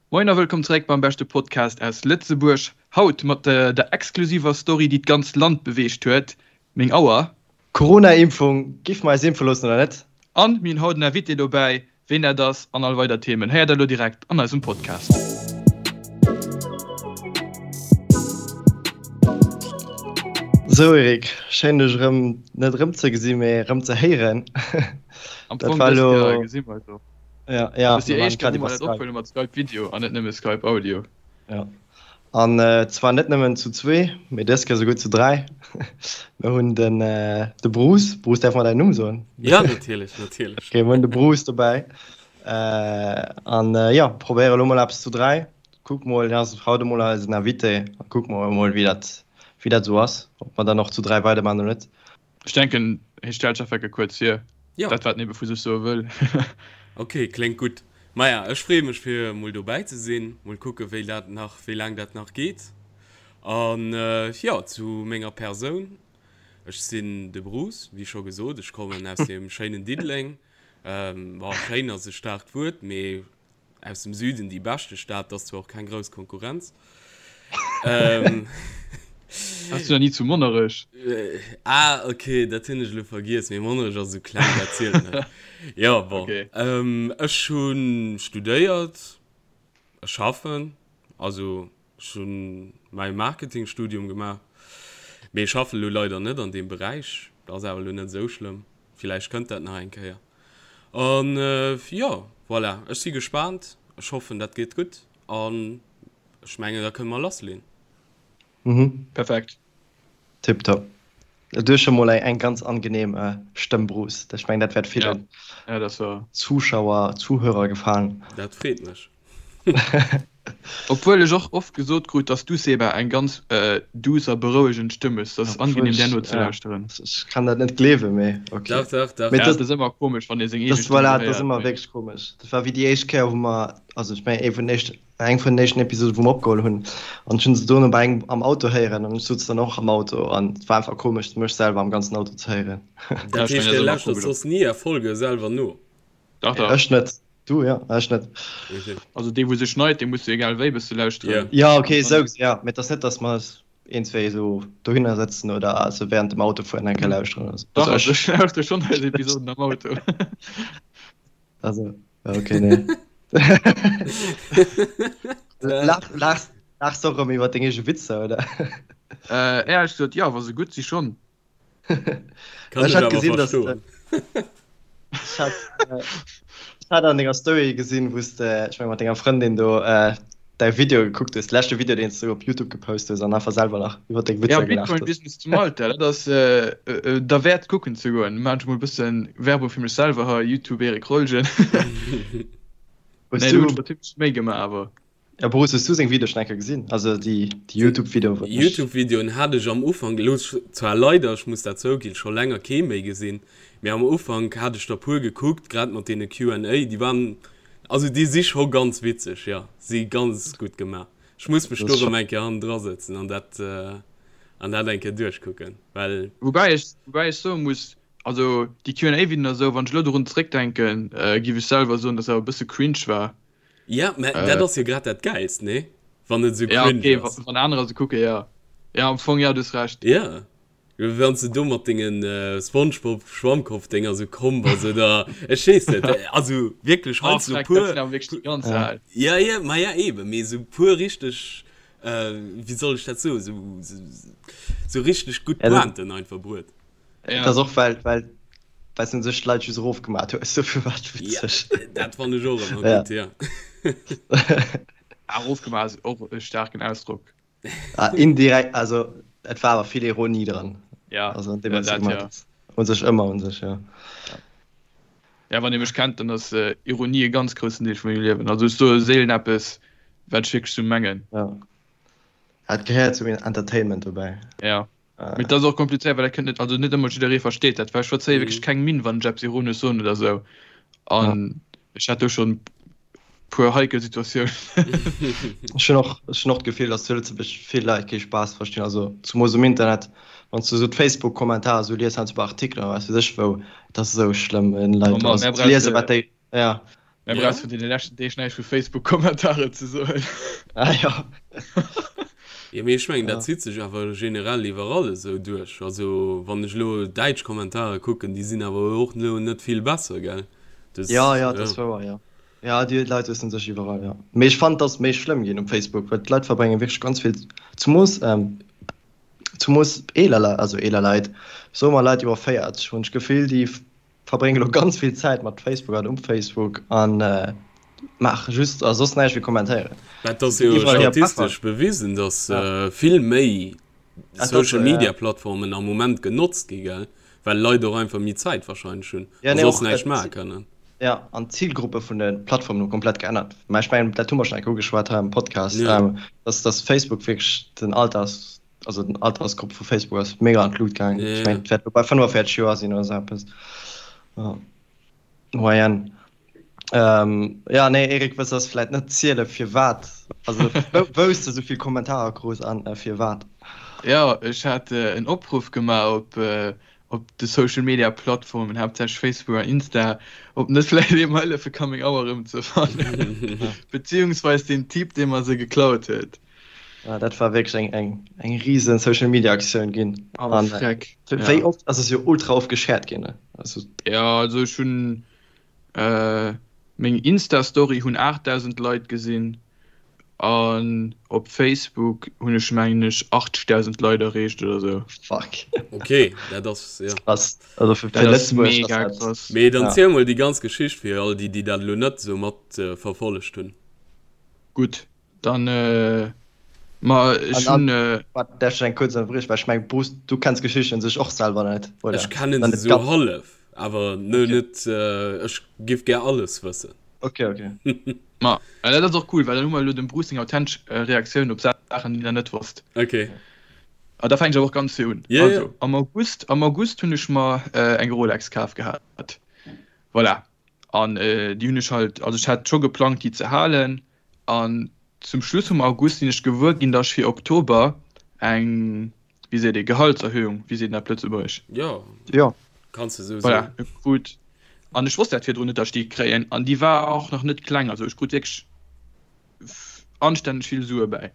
Moien a wëllkomm zeréck beim beschte Podcast aus Lëtzebuerg. Haut mat der exklusiver Story, déi d'ganzt Land beweegt huet, Meng Auer. Corona-Impfung, Giff mer eis impfe loossen oder net? An mir hunn haut en Invité dobäi, ween dat ass an all weider Themen héiert der elo direkt an eisem Podcast. Sou Eric, schéin dech erëm net erëm ze gesinn, mee erëm ze héieren. Am Fong dës Kéier gesi mer eis och. Ja, ja, Das ist die éischt Kéier, wou mer dat ophuele mat Skype Video an net nëmme Skype Audio. Ja. An zwar net nëmmen zu zwee, mee dës Kéier souguer zu dräi. Mir hunn den de Bruce. Bruce, däerf mer däin Numm soen? Ja, natierlech, natierlech. Okay, mir hunn de Bruce dobäi. An jo, probéiere lo mol eppes zu dräi. Kuck mol, hien ass haut emol eisen Invité. A kucke mer emol, wéi dat, wéi dat esou ass, ob mer dann och zu dräi weidermaachen oder net. Ech denken, hie stellt sech einfach kuerz vir, Jo. dat wat en ebe vu sech soe wëll. Ok, kléngt gutt. Maja, ech freeë mech fir mol dobäi ze sinn. Mol kucke wéi dat nach, wéi laang dat nach geet. An jo, zu menger Persoun, Ech sinn de Bruce, wéi scho gesot. Ech kommen aus dem schéinen Diddeleng. Bon, schéin ass e staarkt Wuert, mee Aus dem Süden déi beschte Stad, dat ass zwar och keng grouss Konkurrenz. Ähm. Warst du nach ni zu Monnerech? Ah, okay, dat hunn ech elo vergiess, mee Monnerech ass esou kleng, dat zielt net. Jo, bon. Okay. Ähm, ech hu studéiert, ech schaffen, also ech hu mäi Marketingstudium gemaach, mee ech schaffen elo leider net an deem Beräich. Dat ass awer elo net esou schlëmm, villäicht kënnt dat nach eng Kéier. An jo, voilà, ech si gespaant. Ech hoffen, dat geet gutt an ech mengen, da kënne mer lassleen. Mhm. Perfekt. Tiptop. Du hues scho mol eng ganz angenehm Stëmm, Bruce. Ech mengen, dat wäert villen Ja, dat war. Zuschauer, Zuhörer gefalen. Dat freet mech. Obwuel ech och oft gesot krut, dass du, Seba, eng ganz douce a berouegend Stëmm hues. Dat ass angenehm där nozelauschteren. Ech kann dat net gleewen, mee ok. Dach, dach, dach. Ja, et ass ëmmer komesch, wann ee seng eege Stëmm Voilà, et ass héiert, ëmmer mee. wierklech komesch. Dat war wéi déi éischt Kéier, wou mer, also ech mengen, ee vun den éischten, eng vun den éischten Episoden, wou mer opgeholl hunn, an ech hunn se dono bei engem am Auto héieren an ech souz dann och am Auto an et war einfach komesch, mech selwer am ganzen Auto ze héieren. Dat Ja, ech heescht, mengen, dat Dir ass ëmmer lauschtert komesch. soss ni Är Folge selwer no? Dach, dach. Ech net. Du ja, ech net. Okay. Also dee wou se schneit, dee muss jo egal wéi bësse lauschteren. Ja okay, esou gesinn ja, mee et ass net, datt mer eis een, zwee esou dohinner sëtzen oder also während dem Autofueren eng Kéier lauschteren oder sou. Dach, Also also ech lauschter schonn eis Episoden am Auto. Also ja okay, nee. Lach, lachs, lachs och erëm iwwer deng eege Witzer, oder? Äh, éierlech gesot, jo, wa se gutt si schonn. Kann Ech ech hat awer gesinn, dass verstoen. Ech hat, äh, ech hat an denger Story gesinn, wou s de, ech meng mat denger Frëndin do, äh, däi Video gekuckt hues, de leschte Video, deen s du op YouTube gepost hues an einfach selwer nach iwwer deng Ja, Witzer gelaacht Bitcoin hues. Business zu Malta, dat ass äh, äh, derwäert kucken ze goen. Maan ech mol e bëssen Werbung fir mech selwer hei, YouTube Eric Rolgen. Hues Nee, do hunn du, ech mer zimmlech Méi gemaach awer. Ja Bruce, hues du seng Videoen schon eng Kéier gesinn? Also déi Youtube Videoen wou ech. Youtube Videoen hat ech am Ufank, elo zwar leider, ech muss dat zouginn, scho länger kee méi gesinn, mee am Ufank hat ech der puer gekuckt, grad mat deene Q and A, déi waren, also déi si scho ganz witzeg, jo, si ganz gutt gemaach. Ech muss mech do rëm eng Kéier hannendra sëtzen an dat an dat eng Kéier duerchkucken, well. Woubäi ech, woubäi ech soe muss, also déi Q and A Videoen a sou, wann ech elo dorun zeréckdenken, giff ech selwer soen, dass se awer e bësse cringe war. Ja, mä dat ass jo grad dat Gäilst, nee? Wann et esou Ja, cringe okay, ass. wann anerer se kucken, ja. Ja, am Fong, ja, du hues Recht. Ja, wann s de do mat dengen Spongebob-Schwammkopf-Dénger esou komm bass, oder ech weess net, also wierklech Oh, heiansdo freck, dat puer, sinn awer wierklech déi ganz Ja. al. ja, ja, ma ja eben, mee esou puer richteg, wéi soll ech dat soen, esou, esou richteg gutt Ja, dat, Pointen einfach bruet. Ja. dat ass och well, well well s du sech d'Leit just erofgemat hues, dofir war et Ja, witzeg. dat fannen ech och ëmmer Ja. gutt, ja. Ah, erofgemaach ass och e staarken Ausdrock. Ah, indirekt, also et war awer vill Ironie dran. Ja, Also an deem, ja, wat s du dat gemat ja. hues. Un sech ëmmer un sech, ja. Ja. Ja, wann ee mech kennt, dann ass Ironie e ganz groussen Deel vu mengem Liewen. Also ech soe seelen eppes, wat ech wierklech sou mengen. Ja. Et gehéiert zum Entertainment dobäi. Ja. Mee dat ass och komplizéiert, well dat kënnt net, also net ëmmer jidderee versteet dat, well ech verzéie wierklech keng Minn, wann ech eppes ironesch soen oder esou. An ech hat do schonn puer heikel Situatiounen. Ech hunn och, ech hunn och d'Gefill, datt zu Lëtzebuerg vill Leit kee Spaass verstinn, also zumoos um Internet, wann s du esou d'Facebook-Kommentarer esou lies, heiansdo bei Artikelen oder wat weess ech wou, et ass esou schlëmm, wenn Leit Oh Mann, also mär ze liesen, brauche wat déi, ja. Mä brauchs vun deene leschten Deeg näischt vu Facebook-Kommentaren ze soen. Ah jo. Jo, mee ech mengen, dat zitt sech awer generell iwwerall esou duerch. Also wann ech elo däitsch Kommentare kucken, déi sinn awer och elo net vill besser, gell? Dus, Ja, ja, dat ass wouer, jo. Ja, déi Leit huessen sech iwwerall, jo. Mee ech fannen, et ass méi schlëmm ginn um Facebook, well d'Leit verbrénge wierklech ganz vill, zemoos, zemoos eeler Leit, also eeler Leit, soe mer Leit iwwer 40, hunn ech d'Gefill, déi verbrénge lo ganz vill Zäit mat Facebook an um Facebook an maache just a soss näischt wéi kommentéieren. Mä et ass jo statistesch bewisen, datt vill méi Social Media Plattformen am Moment genotzt gi, gell? Well Leit och einfach méi Zäit wahrscheinlech hunn a soss näischt maache kënnen. Jo, an d'Zilgruppe vun de Plattformen hu komplett geännert. Mä ech mengen, dat hu mer schonn eng Kéier ugeschwat hei am Podcast, datt Facebook wierklech den Alters Also den Altersgrupp vu Facebook ass mega an d'Lut gaangen. Yeah. Ech mengen, et wäert bei 45 Joer sinn oder sou eppes. Ja. Moyenne. Ähm, ja, nee, Erik, wëlls du vläit net ziele firwat? Also wou s de sou vill Kommentarer krus an äh, firwat? Ja, ech hat äh, en Opruff gemaach op, äh, op de Social Media Plattformen, haaptsächlech Facebook an Insta, ob net vläicht ee mer hëllefe ka meng Auer erëmzefannen. Beziehungsweis den Typ, dee mer se geklaut huet. Ja, dat war wierklech eng, eng, eng riesen Social Media Aktioun ginn. Awer An, freck. Wéi ja. oft ass es jo ultra oft geshared ginn. Also, ja, also ech hunn äh, meng Insta-Story hunn 8000 Leit gesinn an op Facebook hunn ech mengen ech 80.000 Leit erreecht oder sou. Fuck. Okay, dat ass ja. Krass. Also fir, fir Lëtzebuerg mega ass dat. Krass. Mee dann ja. ziel mol déi ganz Geschicht fir all déi, déi dat elo net sou mat äh, verfollegt hunn. Gutt. Dann, ma ech hunn. Waart, däerf ech eng kuerz ënnerbriechen, well ech mengen, Bruce, du kenns d'Geschicht un sech och selwer net, oder? Ech kennen se esou hallef, awer net, ech giff gär alles wëssen. Ok, ok. Ma dat ass och cool, well dann hu mer elo dem Bruce seng authentesch Reaktioun op Saachen, déi en net wosst. Ok. A da fänken ech awer och ganz vir un. Also, am August, am August hunn ech mer eng Rolex kaf gehat. Voilà. An déi hunn ech halt, also ech hat scho geplangt, déi ze halen. An zum Schluss vum August sinn ech gewuer ginn, datt ech fir Oktober eng, wéi seet ee, Gehaltserhöhung, wéi seet een dat op Lëtzebuergesch? Jo, Jo. kanns de esou soen. Voilà, krut. An ech wosst dat virdrun net, datt ech déi kréien. An déi war och nach net kleng, also ech krut wierklech anstänneg vill Sue bäi.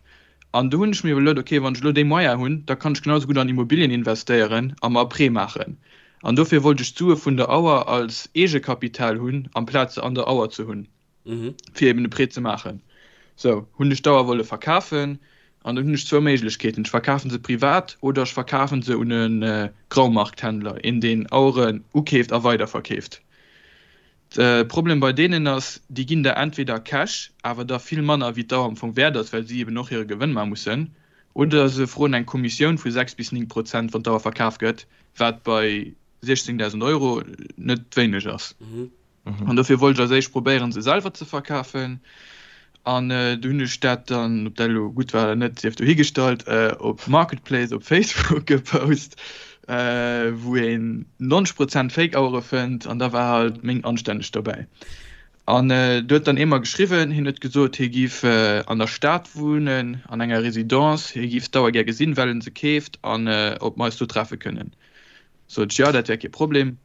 An do hunn ech mir iwwerluet, okay, wann ech elo déi Moyen hunn, da kann ech genau esou gutt an Immobilien investéieren a mer e Prêt maachen. An dofir wollt ech d'Sue vun der Auer als Eegekapital hunn, amplaz se an der Auer ze hunn. fir eben e Prêt ze maachen. Sou hunn ech d'Auer wolle verkafen an dann hunn ech zwou Méiglechkeeten, Ech verkafen se privat oder ech verkafen se un e Graumarkthändler, een deen Aueren ukeeft a weiderverkeeft. De Problem bei deenen ass, déi ginn der entweder Cash, awer da vill manner wéi d'Auer am Fong wäert ass, well si eben och hire Gewënn maache mussen, oder se froen eng Kommissioun vu 6 bis 9 Prozent, wann d'Auer verkaf gëtt, wat bei 16.000 Euro net wéineg ass. An dofir wollt ech als éischt probéieren, se selwer ze verkafen. An du hunn ech dat dann, ob dat elo gutt war oder net, sief dohigestallt, op Marketplace op Facebook gepost, wou een 90 Prozent Fake-Auere fënnt. An da war halt meng anstänneg dobäi. An du huet dann ee mer geschriwwen, hien huet gesot, hie giff an der Stad wunnen, an enger Residence, hie giff d'Auer gär gesinn, well en se keeft, an ob mer eis do treffe kënnen. Sot ech, jo, dat wär kee Problem.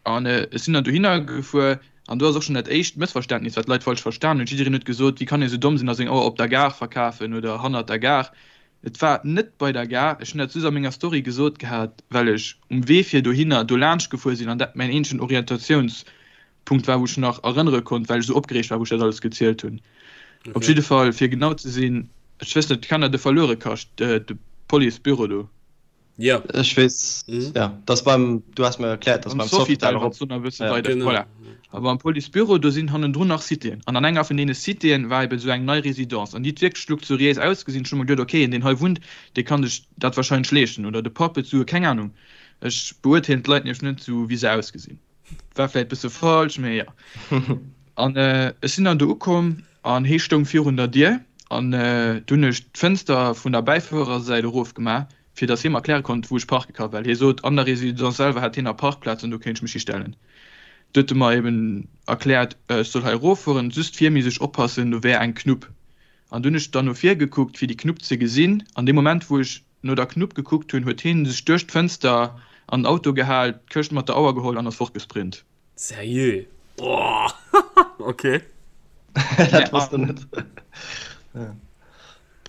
An ech sinn dann dohinner gefuer an do ass och schonn dat éischt Mëssverständnis, wat d'Leit falsch verstan hunn. Jiddereen huet gesot, wéi kann ee sou domm sinn a seng Auer op der Gare verkafen oder hannert der Gare. Et war net bei der Gare. Ech hunn dat just a menger Story gesot gehat, well ech um Wee fir dohinner do laanscht gefuer sinn an dat mäin eenzegen Orientatiounspunkt war, wou ech nach erënnere konnt, well ech sou opgereegt war, wou ech dat alles gezielt hunn. Op jidde Fall, fir genau ze sinn, ech wëss net, kennt der de Verluerekascht, de Policebüro do? Ja. Ech weess, mhm. ja, das beim, du hast mir erklärt, dass beim Sofitel erop. Ja, weiter. Genau. Voilà. Aber am Policebüro, do sinn hannendrun nach Citéen. An an enger vun deene Citéen war eben sou eng nei Residence. An déi huet wierklech luxuriéis ausgesinn. Ech hu mer geduet, okay, een deen hei wunnt, dee kann sech dat wahrscheinlech leeschten. Oder de Papp huet Sue, keng Ahnung. Ech beurteelen d'Leit nämlech net sou, wéi se ausgesinn. War vläit bësse falsch, mee jo. An ech sinn dann do ukomm an hee stoung virun der Dier an du hunn ech d'Fënster vun der Bäifuerersäit erofgemaach, fir datt hie mer erkläre konnt, wou ech parke ka, well hie sot, an der Résidence selwer hätt hien nach Parkplazen an do kéint ech mech histellen. Du huet e mer eben erkläert, ech soll hei eroffueren, just vir misst ech oppassen, do wär eng Knupp. An du hunn ech dann no vir gekuckt, fir déi Knupp ze gesinn. An deem Moment, wou ech no der Knupp gekuckt hunn, huet hien sech duerch d'Fënster an den Auto gehal, d'Këscht mat der Auer geholl an ass fortgesprint. Seriö? Boah! Okay. Dat wosst en net.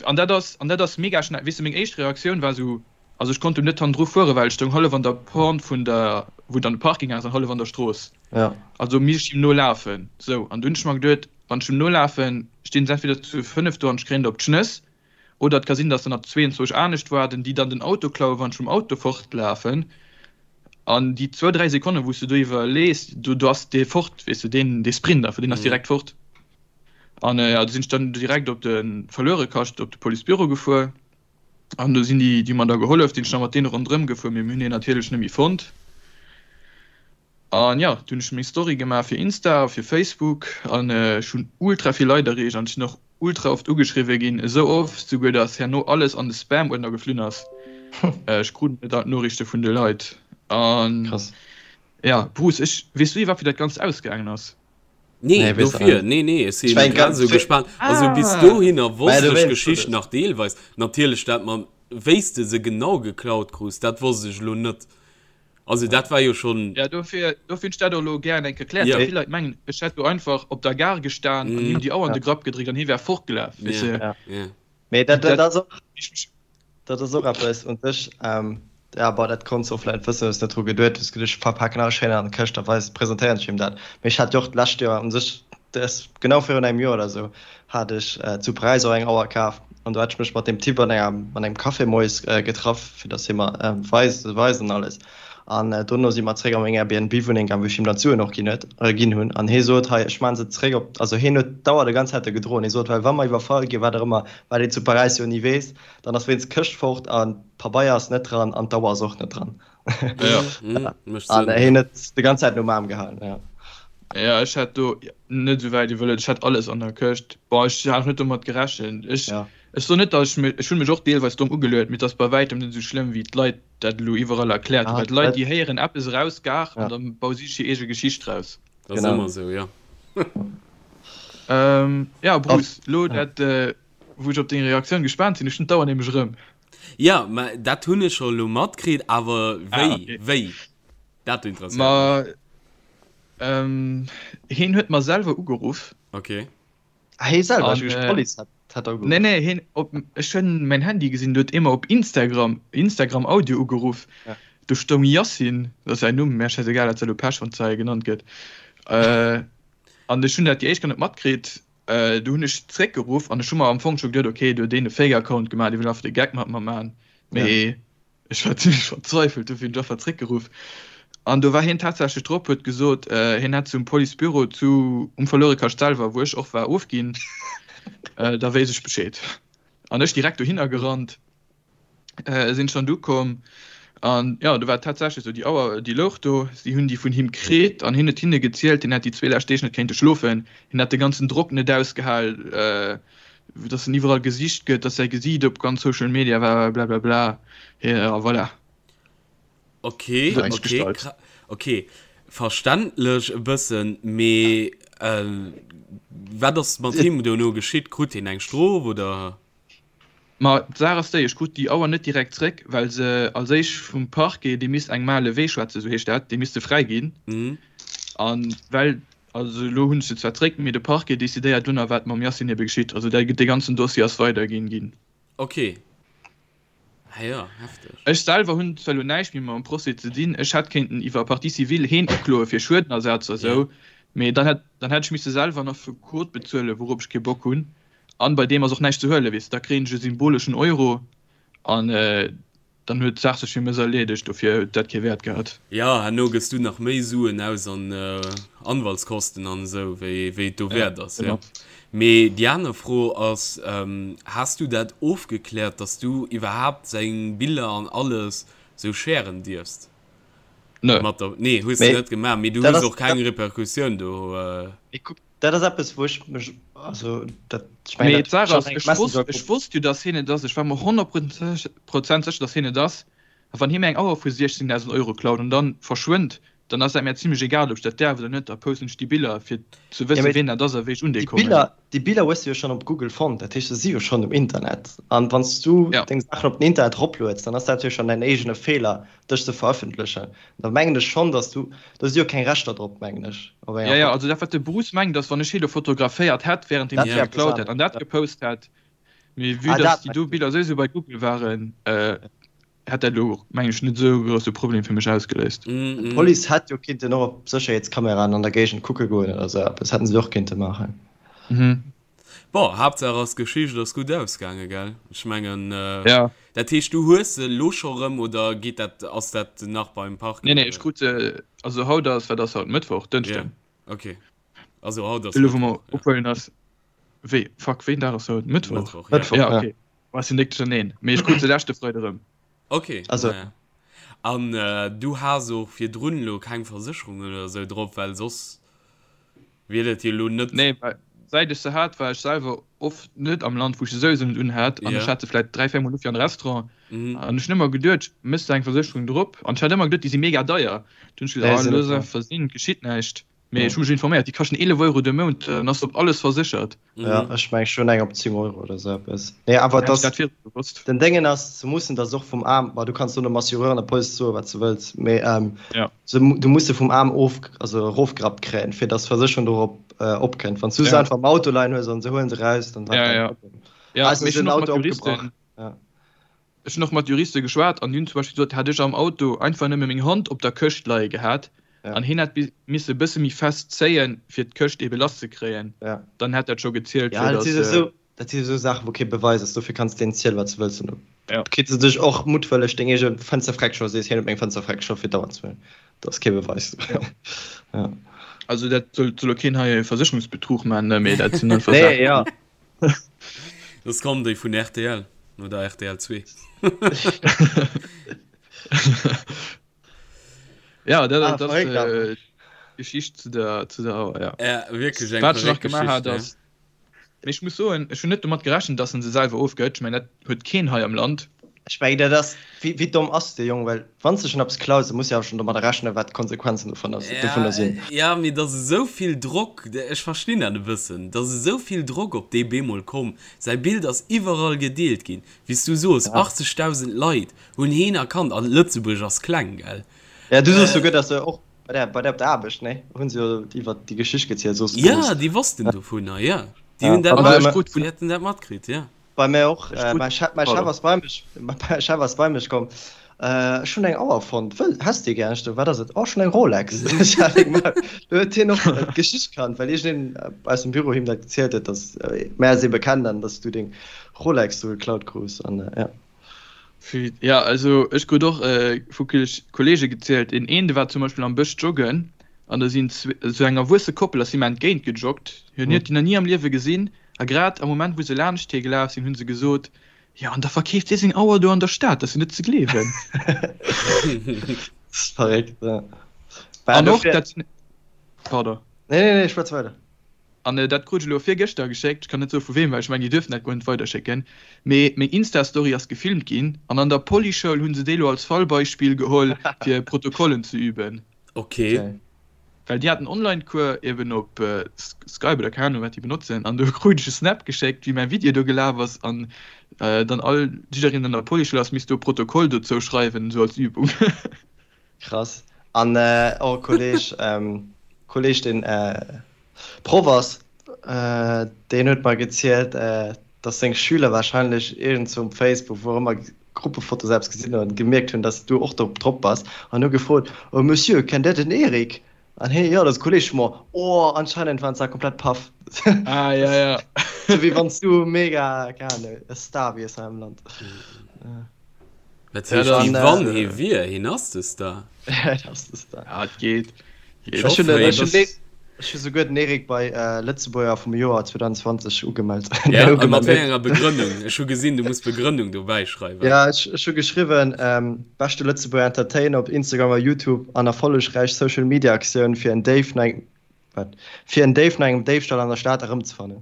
An dat ass, an dat ass mega schnell. Weess de, meng éischt Reaktioun war esou, also ech konnt do net hannendru fueren, well ech stoung hallef an der Pente vun der, wou dann de Parking ass, an hallef an der Strooss. Ja. Also misst ech him nolafen. Sou, an du hunn ech mer geduet, wann ech him nolafen, stinn se entweder zu 5 do an ech kréien der op d'Schnëss, oder et ka sinn, datt der nach 22 anescht waarden, déi dann den Auto klauen, wann ech mam Auto fortlafen. An déi zwou, dräi Sekonnen, wou s du do iwwerlees, do, do ass dee fort, weess de, deen, dee Sprint einfach, deen ass direkt fort. An jo, do sinn ech dann direkt op de Verluerekascht, op de Policebüro gefuer. An do sinn déi, déi hu mer da gehollef, sinn ech nach mat deene ronderëm gefuer, mee mir hunn hien natierlech net méi fonnt. An jo, du hunn ech meng Story gemaach fir Insta a fir Facebook an ech hunn ultra vill Leit erreecht an ech sinn och ultra oft ugeschriwwe ginn, esou oft souguer, datt herno alles an de Spam-Uerdner geflunn ass. Ech krut net all d'Noriichte vun de Leit. An jo, Bruce, ech, weess du iwwerhaapt wéi dat Ganzt ausgaangen ass? Nee, dofir, nee, nee, ech sinn grad esou gespaant. Also bis dohinner wosst ech d'Geschicht nach deelweis. Natierlech dat mam, wéi s de se genau geklaut krus, dat wosst ech elo net. Also dat war jo schonn. Ja, dofir, dofir hunn ech dat och elo gären eng Kéier erkläert, well vill Leit mengen, ech hätt do einfach op der Gare gestan an him déi Auer an de Grapp gedréckt an hie wär fortgelaf, weess de. Mee dat, dat ass och, dat ass och eppes un sech, ja, bon, dat konns de och vläicht wëssen, hues net dru geduet, hues geduecht, ech verpaken alles schéin an d'Këscht a weis, presentéieren ech him dat. Mee ech hat jo och d'lescht Joer un sech, dat ass genau virun engem Joer oder esou, hat ech zu Paräis och eng Auer kaf an do hat ech mech mat deem Typ an enger, an engem Café moies getraff, fir datt hie mer weist, weist an alles. An dono si mer zréck a meng Airbnb-Wunneng gaang, wou ech him dann d'Suen och ginn huet, ginn hunn. An hie sot, hei, ech maachen se zréck op, also hien huet d'Auer de ganz Zäit do gedroen. Hie sot, well wa mer iwwerfall ginn, wat och ëmmer, wat een zu Paräis jo ni weess, dann ass wéinst d'Këscht fort an d'Pabeier ass net dran an d'Auer ass och net dran. Ja, mécht Sënn. An hien huet de ganz Zäit nom Aarm gehalen, ja. Ja, ech hat do net esou wäit iwwerluet. Ech hat alles an der Këscht. Bon, ech hat och net domat gerechent. Ech, ech soen net, datt ech mech, ech hunn mech och deelweis domm ugeluet, mee et ass bei wäitem net esou schlëmm wéi d'Leit dat elo iwwerall erkläert hunn, well d'Leit déi héieren eppes eraus gar an da baue si sech hir eege Geschicht draus. Dat ass ëmmer esou, jo. Ja Bruce, elo dat wou ech op deng Reaktioun gespaant sinn, ech hunn d'Auer nämlech erëm. Jo, mä dat hunn ech scho elo matkritt, awer wéi, wéi? Dat interesséiert mech. Ma hien huet mer selwer ugeruff. Ok. Ah, hee selwer? Ech duecht, d'Police hätt hätt ugeruff. Nee, nee, hien op, ech hunn mäin Handy gesinn, do huet ee mer op Instagram, Instagram Audio ugeruff. Ja. Do stoung Yassin, dat ass säin Numm, mä schäisegal, dat ass elo Pech, wann d'Zei genannt gëtt. An ech hunn dat déi éischt gar net matkritt. Du hunn ech zréckgeruff an ech hu mer am Fong scho geduet, okay, do huet een e Fake-Account gemaach, dee wëll einfach de Geck mat mer maachen. Mee Ech war zimlech verzweifelt, dofir hunn ech einfach zréckgeruff. An do war hien tatsächlech drop, huet gesot, hien hätt zum Policebüro zu um Verluerekascht selwer, wou ech och war, ofginn. Da wéisst ech Bescheed. An ech direkt dohinner gerannt, sinn ech dann du komm. An jo, do war et tatsächlech esou, déi Auer, déi louch do, si hunn déi vun him kritt an hien huet hinne gezielt, hien hätt déi zwee lescht Deeg net kéinte schlofen, hien hätt de ganzen Drock net ausgehal, dass en iwwerall gesicht gëtt, dass säi Gesiit op ganz Social Media war, blablabla. Ja, voilà. Okay, okay, okay. Verständlech e bëssen, mee äh, wat ass mat him dono geschitt? Krut hien eng Strof oder? Ma d'Saach ass déi, ech krut déi Auer net direkt zréck, well se als éischt vum Parquet, dee misst eng Main levée schwätzen, esou heescht dat, dee misst se fräiginn. An well Also elo hunn ech se zwar zréck, mee de Parquet decidéiert dunn a wat mam Yacine ebe geschitt. Also dat, dee ganzen Dossier ass weiderginn ginn. Ok. Ah jo, hefteg. Ech selwer hunn zwar elo näischt méi mam Procès ze dinn, ech hätt kéinten iwwer Partie civile heen ukloe fir Schuedenersatz a sou, mee dann hätt dann hätt ech misse selwer en Affekot bezuelen, wourop ech kee Bock hunn. An bei deem ass och näischt ze huelen, weess de, da kréien ech e symboleschen Euro an Dann huet d'Saach sech fir mech erleedegt, dofir huet dat kee Wäert gehat. Jo, herno gëss du nach méi Suen aus an Anwaltskosten an esou, wéi wéi et dowäert ass, jo. Mee déi aner Fro ass, Has du dat ofgekläert, dass du iwwerhaapt seng Biller an alles sou sharen dierfst? Nö. Mat der, nee, hues de net gemaach, mee du hues och keng Repercussioun do. Mee kuck, Dat ass eppes, wou ech mech, also dat, ech mengen, dat Mee d'Saach ass, ech wosst, ech wosst jo, dass hien et ass. Ech war mer 100 Prozent sécher, dass hien et ass. A wann hie mir eng Auer vu 16.000 Euro klaut an dann verschwënnt, Dann ass dat mär zimlech egal, ob ech dat däerf oder net. Da posten ech déi Biller, fir ze wëssen, ween dat ass a wéi ech un déi Déi kommen. Biller, déi Biller hues du jo schonn op Google fonnt, dat heescht, se si jo schonn um Internet. An wann s du Ja. deng Saachen op den Internet eroplueds, dann ass dat jo schonn däin eegene Feeler, dech ze verëffentlechen. Da mengen ech schonn, dass du, do si jo keng Rechter drop, mengen ech, op enger Ja, ja, Foto. also dat, wat de Bruce mengt, ass, wann ech hie lo fotograféiert hätt, während deem Dat hie wär eppes geklaut hätt, anescht, an dat ja. gepost hätt, mee vue Ah, dass dat déi do mengs du. Biller souwisou bei Google waren, hätt dat elo, mengen ech, net esou e grousse Problem fir mech ausgeléist. D'Police hätt jo kinnten och op Sécherheetskameraen an der Géigend kucke goen oder esou eppes hätten se och kinnte maachen. Bon, Haaptsaach ass d'Geschicht ass gutt ausgaange, gell? Ech mengen, Ja. dat heescht du hues se elo scho rëm oder geet dat, ass dat nach beim Parquet? Nee, nee, ech krut se, also haut ass, wat ass haut, Mëttwoch, Dënschden. Ja, okay. Also haut ass Elo wou mer Mëttwoch, ja. ophuelen ass, wéi, fuck, wéi en Dag ass haut? Mëttwoch? Mëttwoch, ja. Mëttwoch, Ja, ja. okay. War si nik duercherneen, mee ech krut se leschte Freide rëm. Ok, Also. naja. An du has och virdrun elo keng Versécherung oder esou drop, well soss wier dat jo elo net. Nee, well säit ech se hat, war ech selwer oft net am Land, wou ech se souwisou net unhat. An ech Ja. hat se vläit 3, 4 Mol u fir an de Restaurant. Mhm. An ech hunn ëmmer geduet, méchs de eng Versécherung drop? An ech hat ëmmer geduet, déi si mega deier. Dunn hunn ech Nee, gesot, ah, sinn net looss deier. einfach sinn, geschitt näischt. Mee ech hu mech informéiert, déi kaschten 11 Euro de Mount, dann ass op alles verséchert. Ja, ech meng ech hunn eng op 10 Euro oder esou eppes. Nee, awer Hätt ech dass dat virdru gewosst. den Déngen ass, se mussen dass och vum Aarm, ma du kanns do dem Assureur an der Police soe wat s de wëlls, mee Ja. se, du muss se vum Aarm of, also erofgerappt kréien, fir dass d'Versécherung dorop opkënnt. Wann s du se Ja. einfach am Auto leien hues an se huelen se raus, dann wat Ja, dein ja. Problem. Ja, Eis mee ass ech hunn en och mat Auto Juristen, opgebrach. Ja. Ech hunn och mat Juriste geschwat an déi hunn zum Beispill gesot, hätt ech am Auto einfach nëmme meng Hand op der Këscht leie gehat an hien hätt misse e bësse méi fest zéien, fir d'Këscht ebe lass ze kréien, dann hätt dat scho gezielt, fir datt. Dat si esou Saachen, wou kee Beweis ass, dofir kanns de deen zielen, wat s de wëlls. An da kritt se dech och muttwëlleg deng eege Fënster freck scho, sees, hien huet meng Fënster freck scho fir d'Auer ze huelen. Dat ass kee Beweis. Also dat soll elo keen hei Versécherungsbetrug maachen, mee dat sinn einfach Saachen. Nee, jo. Soss kommen déi vun rtl oder rtl 2. Ja, dat, ah, dat ass äh, Geschicht zu der, zu der Auer, ja. Ja, wierklech eng Wat ech nach verréckt gemaach hat, Geschicht, ja. ass, mee ech muss soen, ech hunn net domat gerechent, dass en se selwer ofgëtt. Ech mengen, dat huet keen hei am Land. Ech mengen, dat ass, wéi, wéi domm ass dee Jong? Well wann s de schonn eppes klaus, da muss de awer schonn domadder rechnen, wat d'Konsequenzen dovunner Ja, sinn. ja, mee et ass esou vill Drock, ech verstinn dat e bëssen, et ass esou vill Drock op dee bemol komm, säi Bild ass iwwerall gedeelt ginn, wéi s du soos, 80.000 Leit hunn heen erkannt an Lëtzebuerg ass kleng, gell? Ja, du soos souguer, dass se och bei der, bei der op der Aarbecht, nee, hu se jo iwwert déi Geschicht gezielt, soos du. Ja, déi wossten dovunner, ja, déi hunn dat mat, déi hätten dat matkritt, ja. Bei mär och. Mäi Chef, mäi Chef ass bei mech, mäi Chef ass bei mech komm. Ech hunn eng Auer fonnt. Wëll, häss déi gär? Ech sou, wat ass et? Oh, ech hunn eng Rolex. Ech hat eng gemaach. Do huet hien och d'Geschicht kannt, well iergendeen aus dem Büro him dat gezielt huet, dass mär eis ebe kennen an dass du deng Rolex do geklaut krus an ja. Ja, also ech krut och vu Kollege gezielt, een een, dee war zum Beispill am Bësch joggen an da sinn esou eng erwuesse Koppel ass him entgéint gejoggt. Hien huet déi nach ni am Liewe gesinn. A grad am Moment, wou se laanscht hie gelaf sinn, hu se gesot, Jo, an da verkeeft hie seng Auer do an der Stad, dat ass jo net ze gleewen. Verréckt, ja. An och dat, pardon. Nee, nee, nee, schwätz weider. An dat krut ech elo virgëschter geschéckt, ech kann net soe vu weem, well ech mengen, déi duerften dat guer net weiderschécken, mee meng Insta-Story ass gefilmt ginn an an der Polyschoul hu se déi elo als Fallbeispill geholl, fir Protokollen ze üben. Okay. Well déi haten Online-Cours eben op Skype oder keng Ahnung wat déi benotzen an do krut ech e Snap geschéckt wéi mäi Video do gelaf ass an dann all jiddereen an der Polyschoul ass misst do e Protokoll dozou schreiwen esou als Übung. Krass. An och e Kolleg, Kolleg deen Proff ass, deen huet mer gezielt, dass seng Schüler wahrscheinlech iergendzwou um Facebook, wou och ëmmer, Gruppefoto selbst gesinn hunn an gemierkt hunn, dass du och do drop bass an hu gefrot, Oh Monsieur, kennt der den Eric? An hien, Jo, dat ass e Kolleg vu mer. Oh, anscheinend waren se da komplett paff. Ah, ja, ja. Sou wéi wann s du mega, keng Ahnung, e Star wiers hei am Land. Dat heescht, wéi wann hie wier, hien ass de Star. Hien ass de Star. Ja, et geet. Ech hunn ech hu souguer den Eric bei Lëtzebuerger vum Joer 2020 ugemellt. Ja, a mat wéi enger Begrënnung? Ech hu gesinn, du muss Begrënnung dobäi schreiwen. Ja, ech ech hu geschriwwen, Beschte Lëtzebuerger Entertainer op Instagram a Youtube an erfollegräich Social Media Aktioun fir en Déif no engem, wat? Fir en Déif no engem Déifstall an der Stad erëmzefannen.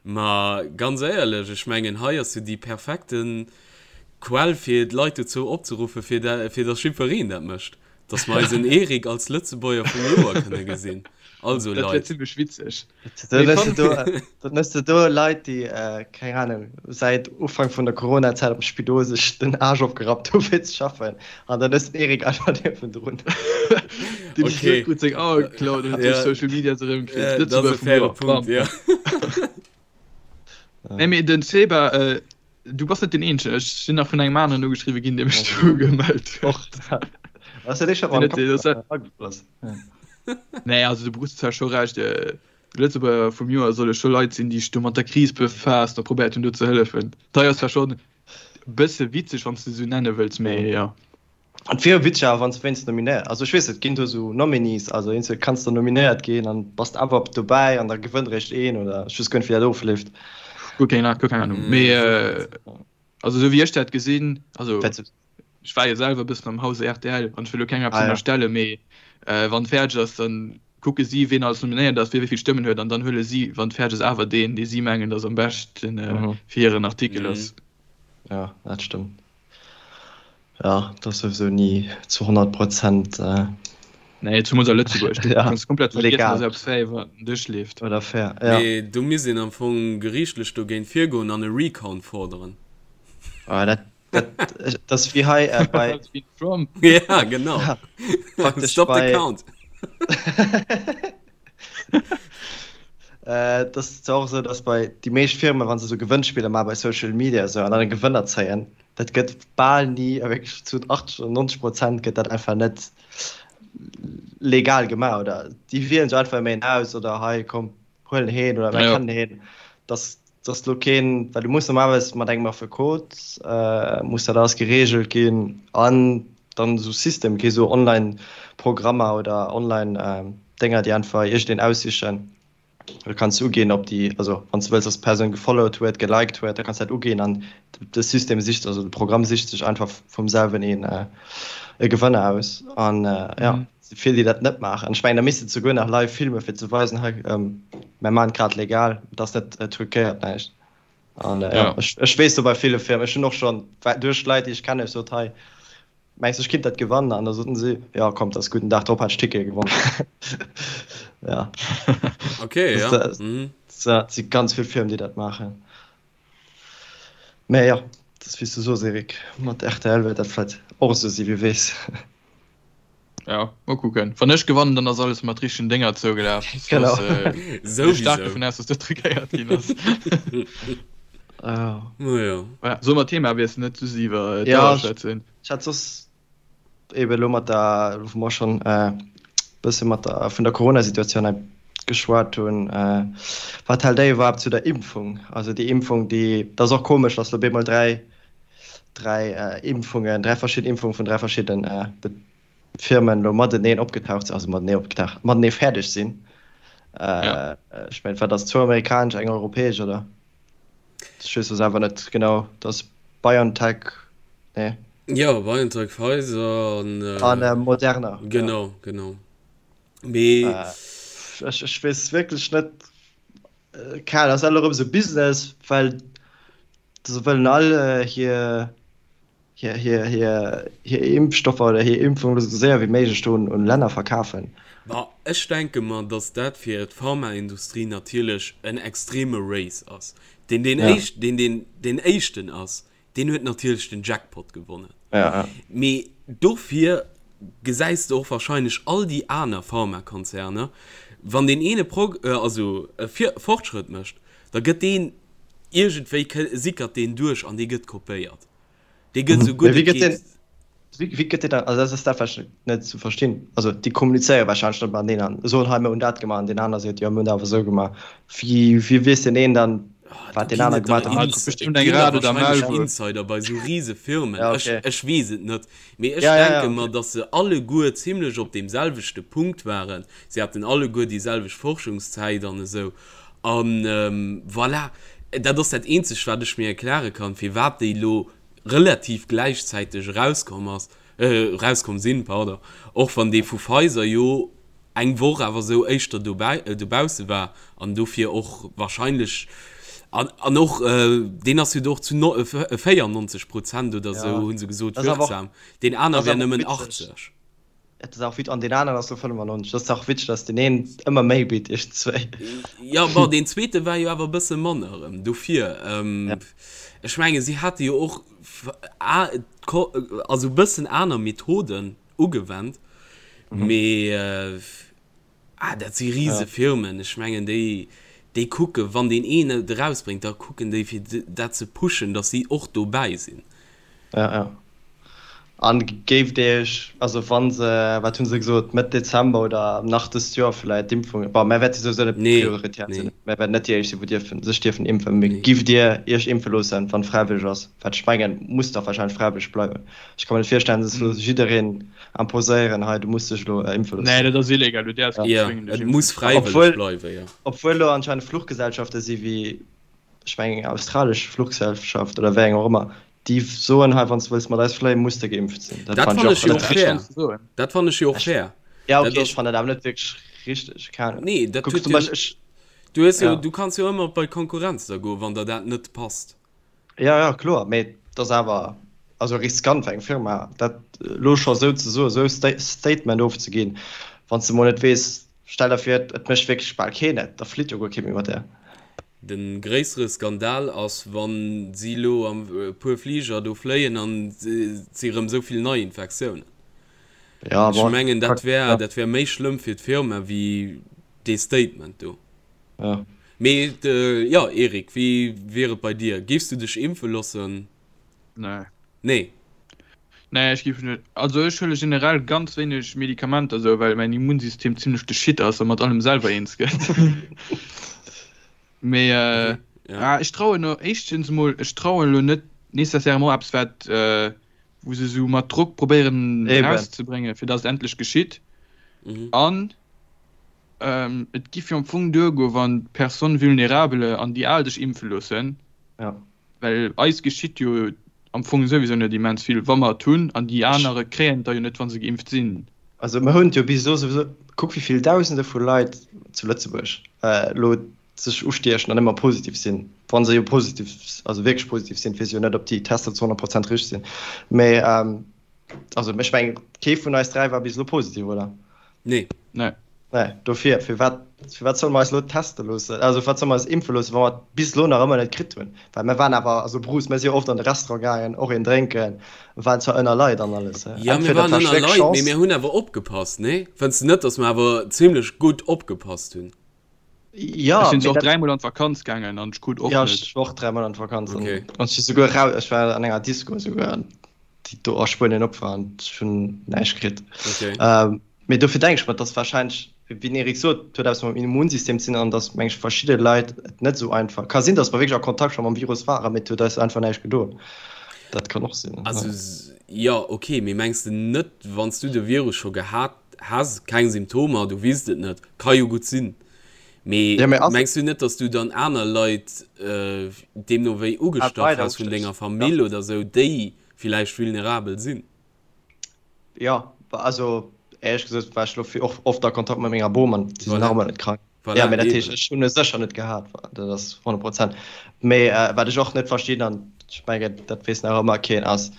Ma ganz éierlech, ech mengen hei ass jo déi perfekten Quell fir d'Leit dozou opzeruffen, fir fir datt jiddwereen dat mécht. Dass mer eisen Eric als Lëtzebuerger vum Joer kënne gesinn. Also Dat wär Leit. zimmlech witzeg. Dann hues de do, dann hues de do Leit, déi, keng Ahnung, säit Ufank vun der Corona-Zäit am Spidol sech den Aarsch opgerappt hu fir ze schaffen. An dann hues de den Eric einfach niewendrun. Deen sech Okay. net gutt seng Auer geklaut huet duerch Ja. Social Media se erëmkritt. Ja, dat ass Lëtzebuerger e vum faire Joer, Punkt, bam. ja. Nee, mee den Seba, Du bass net den eenzegen, ech sinn nach vun engem aneren ugeschriwwe ginn, dee mech do gemellt huet. Och dat. Ass dat eescht, wat mer am Kapp agefloss? Nee, also de Bruce huet zwar scho Recht, de Lëtzebuerger vum Joer solle scho Leit sinn, déi sech do mat der Kris befaasst a probéiert hunn do ze hëllefen. Dat ass zwar schonn e bësse witzeg, wann s de esou nenne wëlls, mee jo. Et wier witzeg awer wann s de wéinst nominéiert, also ech weess et ginn do esou Nominees, also eenzel kanns de nominéiert ginn an bass de awer dobäi an da gewënnt eréischt een oder ech weess guer net wéi dat ofleeft. Guer keng guer keng Ahnung, mee also esou wéi ech dat gesinn, also ech war jo selwer e bëssen am Hause rtl an ech wëll elo kengem eppes ënnerstellen, mee wann et fäerdeg ass, dann kucke si ween alles nominéiert ass, wie wéi vill Stëmmen huet an dann huele si wann et fäerdeg ass awer deen dee si mengen datt am beschten fir hiren Artikel ass. Jo dat stëmmt. Ja, dat ass souwisou ni zu 100 Prozent. Nee, zumools a Lëtzebuerg. Du Ja, kanns komplett vergiessen, legal. dass eppes fair iwwer den Dësch leeft. Oder fair, ja. Mee do misst een am Fong geriichtlech dogéint virgoen an e Recount forderen. Ah, dat, dat, dat ass wéi hei äh, bei. Dat ass wéi Trump. Ja, genau. Ja, praktesch Stop the bei. count. Äh, dat ass zwar och esou, dass bei déi meescht Firmen, wa se esou Gewënnspiller maache bei Social Media esou an dann e Gewënner zéien, dat gëtt bal ni, a wierklech zu 80 oder 90 Prozent gëtt dat einfach net legal gemaach oder déi wielen sech einfach ëmmer een aus oder hei komm huel heen oder mir Ja. kennen heen. Dass dass lo keen, well du muss normalerweis mat engem Affekot äh, muss dat alles geregelt ginn an dann esou System, kee sou Online-Programmer oder Online-Dénger, déi einfach iergendeen aussichen. Du kanns uginn, ob déi, also wann s du wëlls, dass d'Persoun gefollowt huet, geliked huet, da kanns du dat uginn an de System sicht, also de Programm sicht sech einfach vum selwen een e Gewënner aus. An jo, et si vill, déi dat net maachen. Ech mengen, da misst de souguer nach live filmen, fir ze weisen, hei, mär maachen et grad legal, et ass net truquéiert, näischt. An jo, ech weess do bei ville Firmen, ech hunn och schonn duerch Leit, déi ech kennen, ech sot, hei, Mengs du ech kinnt dat gewannen? An da soten si, jo komm, dat ass gutt. Den Dag drop hat ech Tickete gewonnen. Ja. Okay, ja. Dat Mhm. si ganz vill Firmen, déi dat maachen. Mä jo, dat ass wéi s du soos, Eric, mat rtl wäert dat vläicht och esou sinn, wie weess. Ja, mol kucken. Wann ech gewannen, dann ass alles mat richtegen Dénger zougelaf. Genau. Soss ginn ech staark Souwisou. dovun aus, dass dat truquéiert ginn ass. Ah. Naja. Voilà, solle mer Thema wiesselen, net just iwwer Ja, d'Auer ech schwätzen? ech hat soss eben elo mat der, wou mer schonn e bësse mat der, vun der Corona-Situatioun hei geschwat hunn, wat hält Dir iwwerhaapt zu der Impfung? Also déi Impfung, déi, dat ass och komesch, dass elo op eemol 3, 3 Impfungen, 3 verschidden Impfungen vun 3 verschidden Firmen elo mateneen opgetaucht sinn, also matenee opgetaucht, matenee fäerdeg sinn. Ja. Ech mengen, wat ass, zwou amerikanesch, eng europäesch, oder? Ech weess lo selwer net genau, dat ass BioNTech, nee. Jo, BioNTech, Pfizer an. An Moderna. Genau, genau. Mee. Ech, ech weess wierklech net, keng Ahnung, ass alt erëm esou Business, well se wëllen all hir, hir, hir, hir, hir Impfstoffer oder hir Impfung esou séier wéi méiglech do un Länner verkafen. Bah, ech denke mer, datt dat fir d'Pharmaindustrie natierlech en extreme Race ass. Deen, deen Ja. éischt, deen, deen deen éischten ass, deen huet natierlech den Jackpot gewonnen. Ja, ja. Mee dofir gesäis de och wahrscheinlech all déi aner Pharmakonzerner, wann deen eene Prog-, also e Fortschrëtt mécht, da gëtt deen iergendwéi, sickert deen duerch an dee gëtt kopéiert. Dee gëtt esou Mee gutt wéi et gëtt deen, geet. wéi, wéi gëtt deen dann, also dat ass dat wat ech net ze verstinn. Also déi kommunizéiere wahrscheinlech net mateneen an soen, hei mir hunn dat gemaach an deen aner seet, jo mir hunn dat awer esou gemaach. Wéi, wéi weess deen een dann, Ah, wat do deen ginn aner et der gemaach huet? Ah, Ins, et et bestimmt eng ginn der Rad oder wahrscheinlech Maulwuerf. Insider bei esou rise Firmen. Ja, Ech, okay. ech weess et net. Mee ech Ja, ja, ja, denke mer, okay. datt se alleguer zimlech op deem selwechte Punkt waren. Si haten alleguer déi selwecht Forschungszäit an esou. An voilà, dat ass dat eenzegt, wat ech mir erkläre kann, firwat déi elo relativ gläichzäiteg erauskomm ass, erauskomm sinn, pardon, och wann dee vu Pfizer jo eng Woch awer esou éischter dobäi, dobausse war an dofir och wahrscheinlech, an, an och deen ass jo do och zu 94 Prozent oder esou, Ja, hu se gesot, dat ass awer och, wirksam, deen aner dat ass wär awer och nëmmen witzeg. 80. Et ass auch wit an den aneren ass lo 95. Dat ass auch witzeg, dass den een ëmmer méi bitt iergendzwéi. Jo, bon, deen zweete war jo awer e bësse manner erëm. Dofir, ähm, ech menge si hate jo och also e bëssen aner Methoden ugewennt, mee ah, dat si rise Firmen. Ech mengen déi, déi kucke wann deen een et erausbréngt, da kucken déi fir dat ze pushen, datt si och dobäi sinn. Ja, ja. An géift Dir Iech, also wa se, wat hu se gesot, Mëtt Dezember oder nach dëst Joer vläicht d'Impfung, bon, mär wäerte souwisou net Nee, prioritär sinn, nee. mär wäerten net déi éischt sinn, wou dierfen, sech dierfen impfen, mee Nee. giff Dir Iech impfe loossen, wann et fräiwëlleg ass? Wat ech mengen, muss dach wahrscheinlech fräiwëlleg bleiwen. Ech ka mer net virstellen, dass elo jiddereen imposéieren, hei du muss dech elo impfe Nee, loossen. dat ass illegal, du däerfs keen Ja, zwéngen dech et impfen muss ze loossen. fräiwëlleg Obwuel, bleiwen, jo. obwuel elo anscheinend Fluchgesellschafte si wéi, ech mengen eng australesch Fluchgesellschaft oder wéi eng och ëmmer, déi soen, hei wann s de wëlls mat eis fléien, muss de geimpft sinn. Dat fannen ech jo och fair. Dat fannen ech jo och fair. Ja okay, ech fannen dat awer net wierklech richteg, keng Ahnung. Nee, dat huet jo, du hues jo, du kanns jo ëmmer bei d'Konkurrenz da goen, wann der dat net passt. Ja, ja, kloer, mee et ass awer also riskant fir eng Firma, dat elo scho esou ze soen, esou e Statement ofzeginn, wann s de mol net weess, stell der vir, et mécht wierklech bal keen et, da flitt jo guer kee méi mat där. De gréissere Skandal ass, wann si elo am e puer Fliger do fléien an et si rëm esou vill Neiinfektiounen. Ja, Ech bon, mengen, dat wär, ja. dat wär méi schlëmm fir d'Firma wéi dee Statement do. Ja. Mee jo, Eric, wéi wier et bei dir? Géifs du dech impfe loossen? Nee. Nee? Nee, ech géif net. Also ech huele generell ganz wéineg Medikamenter esou, well mäin Immunsystem zimlech de Shit ass a mat allem selwer eens gëtt. Mee Okay, ja. ah, ech trauen no éischtens emol, ech trauen elo net nécessairement eppes wat wou se esou mat Drock probéieren Eben. erauszebréngen, fir datt et endlech geschitt. Mhm. An et giff jo am Fong duergoen, wann d'Personnes vulnérables an déi Al sech impfe loossen. Ja. Well eis geschitt jo am Fong souwisou net immens vill, wa mer et hunn, an déi anere kréien et da jo net, wa se geimpft sinn. Also mer hunn et jo bis elo souwisou, kuck wéi vill Dausende vu Leit zu Lëtzebuerg elo sech ustiechen an ëmmer positiv sinn, wa se jo positiv, also wierklech positiv sinn, weess jo net, ob déi Tester zu 100 Prozent richteg sinn, mä Also ech mengen, kee vun eis 3 war bis elo positiv, oder? Nee. Nee. Nee, dofir, firwat, firwat solle mer eis elo teste loossen, also firwat solle mer eis impfe loossen, wa mer et bis elo nach ëmmer net kritt hunn? Well mir waren awer, also Bruce, mir si jo oft an de Restaurant gaangen, och een drénken, waren zwar ënner Leit an alles. Ja, mir Entweder waren et war ënner schwéck Leit, mee Chance. mir hunn awer opgepasst, nee? Fënns de net, datt mer awer zimlech gutt opgepasst hunn? Ja, Ech sinn mee och dat. dräimol an d'Vakanz gaangen an ech krut och Ja, net. ech war och dräimol an d'Vakanz an Okay. ech si souguer raus, ech war an enger Disco esouguer an déi do a Spuenien op war an ech hunn näischt kritt. Okay. Ähm, mee dofir denke ech mer, dass wahrscheinlech, wéi den Eric sot, et huet eppes mam Immunsystem ze dinn an dass, meng ech, verschidde Leit et net esou einfach, ka sinn, dass mer wierklech a Kontakt scho mam Virus waren, mee et huet eis einfach näischt gedoen. Dat kann och sinn. Also, jo, okay, mee mengs de net, wann s du de Virus scho gehat Has keng Symptomer, du weess et net, ka jo gutt sinn, mee Ja, mee ass mengs du net, dass du dann aner Leit deemno wéi et ugestach weider has vun denger ustéchs? Ja. Famill oder sou, déi villäicht vulnerabel sinn? Jo, also éierlech gesot war ech lo och oft a Kontakt mat menger Bom an si sinn nach Voilà, ëmmer net krank. Ja, voilà, mee dat heescht, eben. ech hunn e sécher net gehat, dat ass 100 Prozent. Mee wat ech och net verstinn, an ech mengen, dat weess nach ëmmer keen, ass,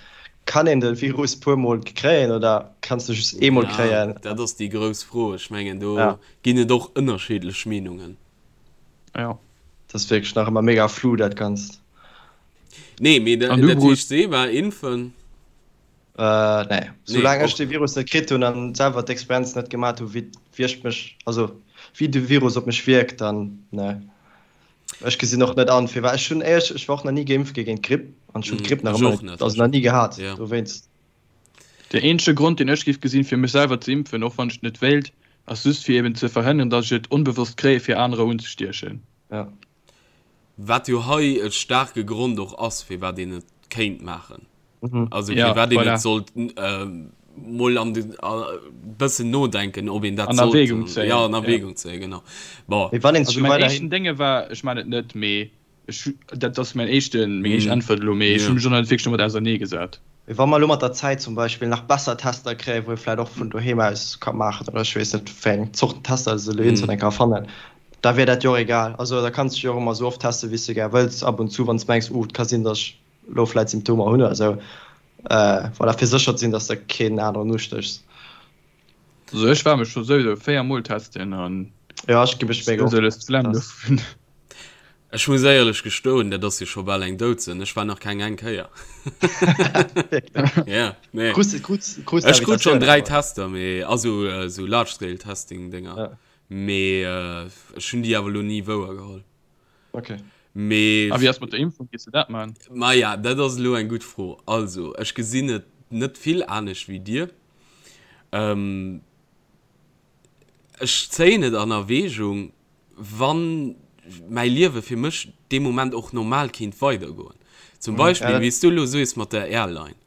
Kann een de Virus puer mol kréien oder kanns de just eemol Ja, kréien? dat ass déi grouss Fro. Ech mengen, do Ja. ginn et och ënnerscheedlech Meenungen. Ja. Dat ass wierklech nach ëmmer mega flou, dat Ganzt. Nee, mee An du, dat Bruce? heescht, Seba, impfen? Äh, nee. Nee, Soulaang ech och de net. Virus net kritt hunn an selwer d'Experienz net gemat hu wéi wierkt mech, also wéi de Virus op mech wierkt, dann nee. Ech gesinn och net an firwat. Ech hunn éierlech, ech war och nach ni geimpft gi géint d'Gripp an ech hunn d'Gripp nach Ech ëmmer och net, net. also nach ni gehat Ja. dowéinst. Den eenzege Grond deen ech géif gesinn fir mech selwer ze impfen, och wann ech et net wéilt, ass just fir eben ze verhënneren, datt ech et onbewosst kréie fir anerer unzestiechen. Ja. Wat jo hei e staarke Grond och ass, firwat een et kéint maachen. Also Ja, firwat een voilà. et sollt mol an de bëssen nodenken, ob een dat An sollt Erwägung zéien. Ja, an Ja. Erwägung zéien, genau. Bon. Mee wann een Also scho mäin weiderhin. éischten Dénge war, ech man et net, mee ech, dat ass mäin éischten, meng éischt Mhm. Äntwert elo, mee ech Ja. hu mech och nach net wierklech domat auserneegesat. Mee wa mer elo mat der Zäit zum Beispill nach besser Tester kréien, wou ee vläicht och vun doheem aus ka maachen oder ech weess net, wéi eng Zorten Tester se elo iergendwann eng Kéier erfannen, da wier dat jo och egal. Also da kanns de dech jo och ëmmer esou oft testen, wéi s de gär wëlls, ab und zu, wann s de mengs, uh, et ka sinn, datt ech elo vläit Symptomer hunn oder esou, voilà, fir sécher ze sinn, dass de keen aneren ustéchs. Also ech war mech scho souwisou 4 mol testen an Ja, ech gi mech mega oft sou d'Flemm dovun. Ech muss éierlech gestoen, dat ass jo scho bal eng Doudsënn, ech war nach keng eng Kéier. Ja, nee. Krus, krus, krus Ech krut schonn Invitatioun 3 awer. Tester, mee also esou Large Scale Testing Dénger, Ja. mee ech hunn déi awer elo ni wouer geholl. Okay. Mee A wéi ass mat der Impfung, gees de dat man? Maja, dat ass elo eng gutt Fro. Also, ech gesinn et net vill anescht wéi dir. Ech zéien et an Erwägung, wann mäi Liewe fir mech dee Moment och normal kéint weidergoen. Zum Beispill, wéi s du elo soes mat der Airline.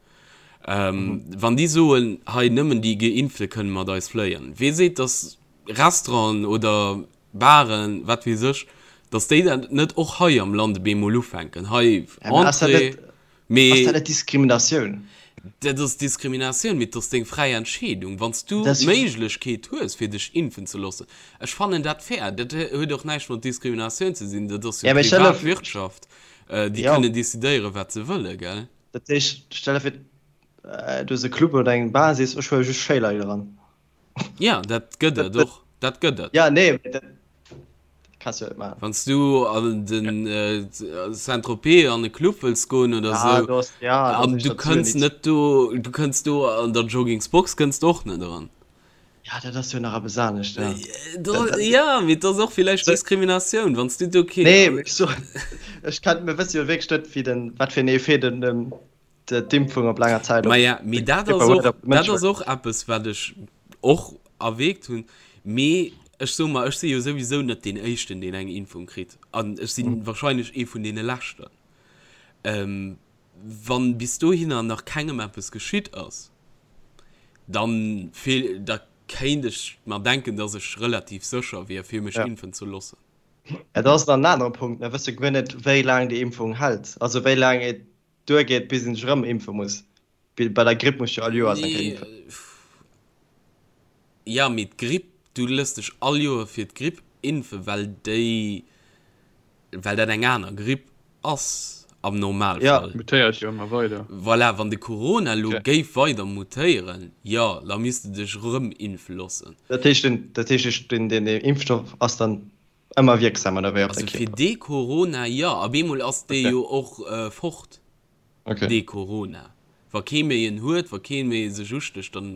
Wann déi soen, hei nëmmen déi Geimpfte kënne mat eis fléien, wee seet, datt Restauranten oder Baren, wat weess ech, datt déi dat net och hei am Land op eemol ufänken, hei Entrée, mee. Ass dat net Diskriminatioun? Dat ass Diskriminatioun, mee et ass deng fräi Entscheedung. Wann s du d'Méiglechkeet hues, fir dech impfen ze loossen, ech fannen dat fair. Dat huet och näischt mat Diskriminatioun ze sinn, dat ass jo privat Wirtschaft, déi kënnen decidéieren, wat se wëllen, gell? Dat heescht, stell der vir, du hues e Club oder eng Bar, sees, ech huele just schéi Leit eran. Ja, dat gëtt et och. Dat gëtt et. Ja, nee, mee dat kanns du net maachen. Wann s du an den Saint-Tropez an e Club wëlls goen oder sou, an du kënns net do, du kënns do an der Joggingsbox kënns de och net eran. Ja, dat ass jo nach eppes anescht, ja. Ja, mee et ass och villäicht Diskriminatioun, wann s du do kee. Nee, mee ech soen, ech kann, mir wësse jo wierklech net, wéi den, wat fir en Effet den, d'Impfung op laanger Zäit op. Maja, mee dat ass och, dat ass och eppes, wat ech och erwägt hunn. Mee ech soe mer, ech si jo souwisou net deen Éischten, deen eng Impfung kritt. An ech si wahrscheinlech ee vun deene Leschten. Wann bis dohinner nach kengem eppes geschitt ass, dann fehl, da kéint ech mer denken, dass ech relativ sécher wier, fir mech impfen ze loossen. Dat ass dann en anere Punkt. Mir wësse guer net, wéi laang déi Impfung hält, also wéi laang et duergeet, bis een sech erëm impfe muss. Bei der Gripp muss jo all Joers eng Kéier impfen. Jo, mee d'Gripp, du lëss dech all Joer fir d'Gripp impfen, well déi, well dat eng aner Gripp ass am Normalfall. Ja, mutéiert jo ëmmer weider. Voilà, wann de Corona elo géif weider mutéieren, jo, da misst de dech erëm impfe loossen. Dat heescht, dat heescht, den Impfstoff ass dann Ëmmer wierksam oder wéi op de Kierper? Also fir dee Corona jo. Op eemol ass dee jo och fort, dee Corona. Wa kee méi en huet, wa kee méi sech ustécht, dann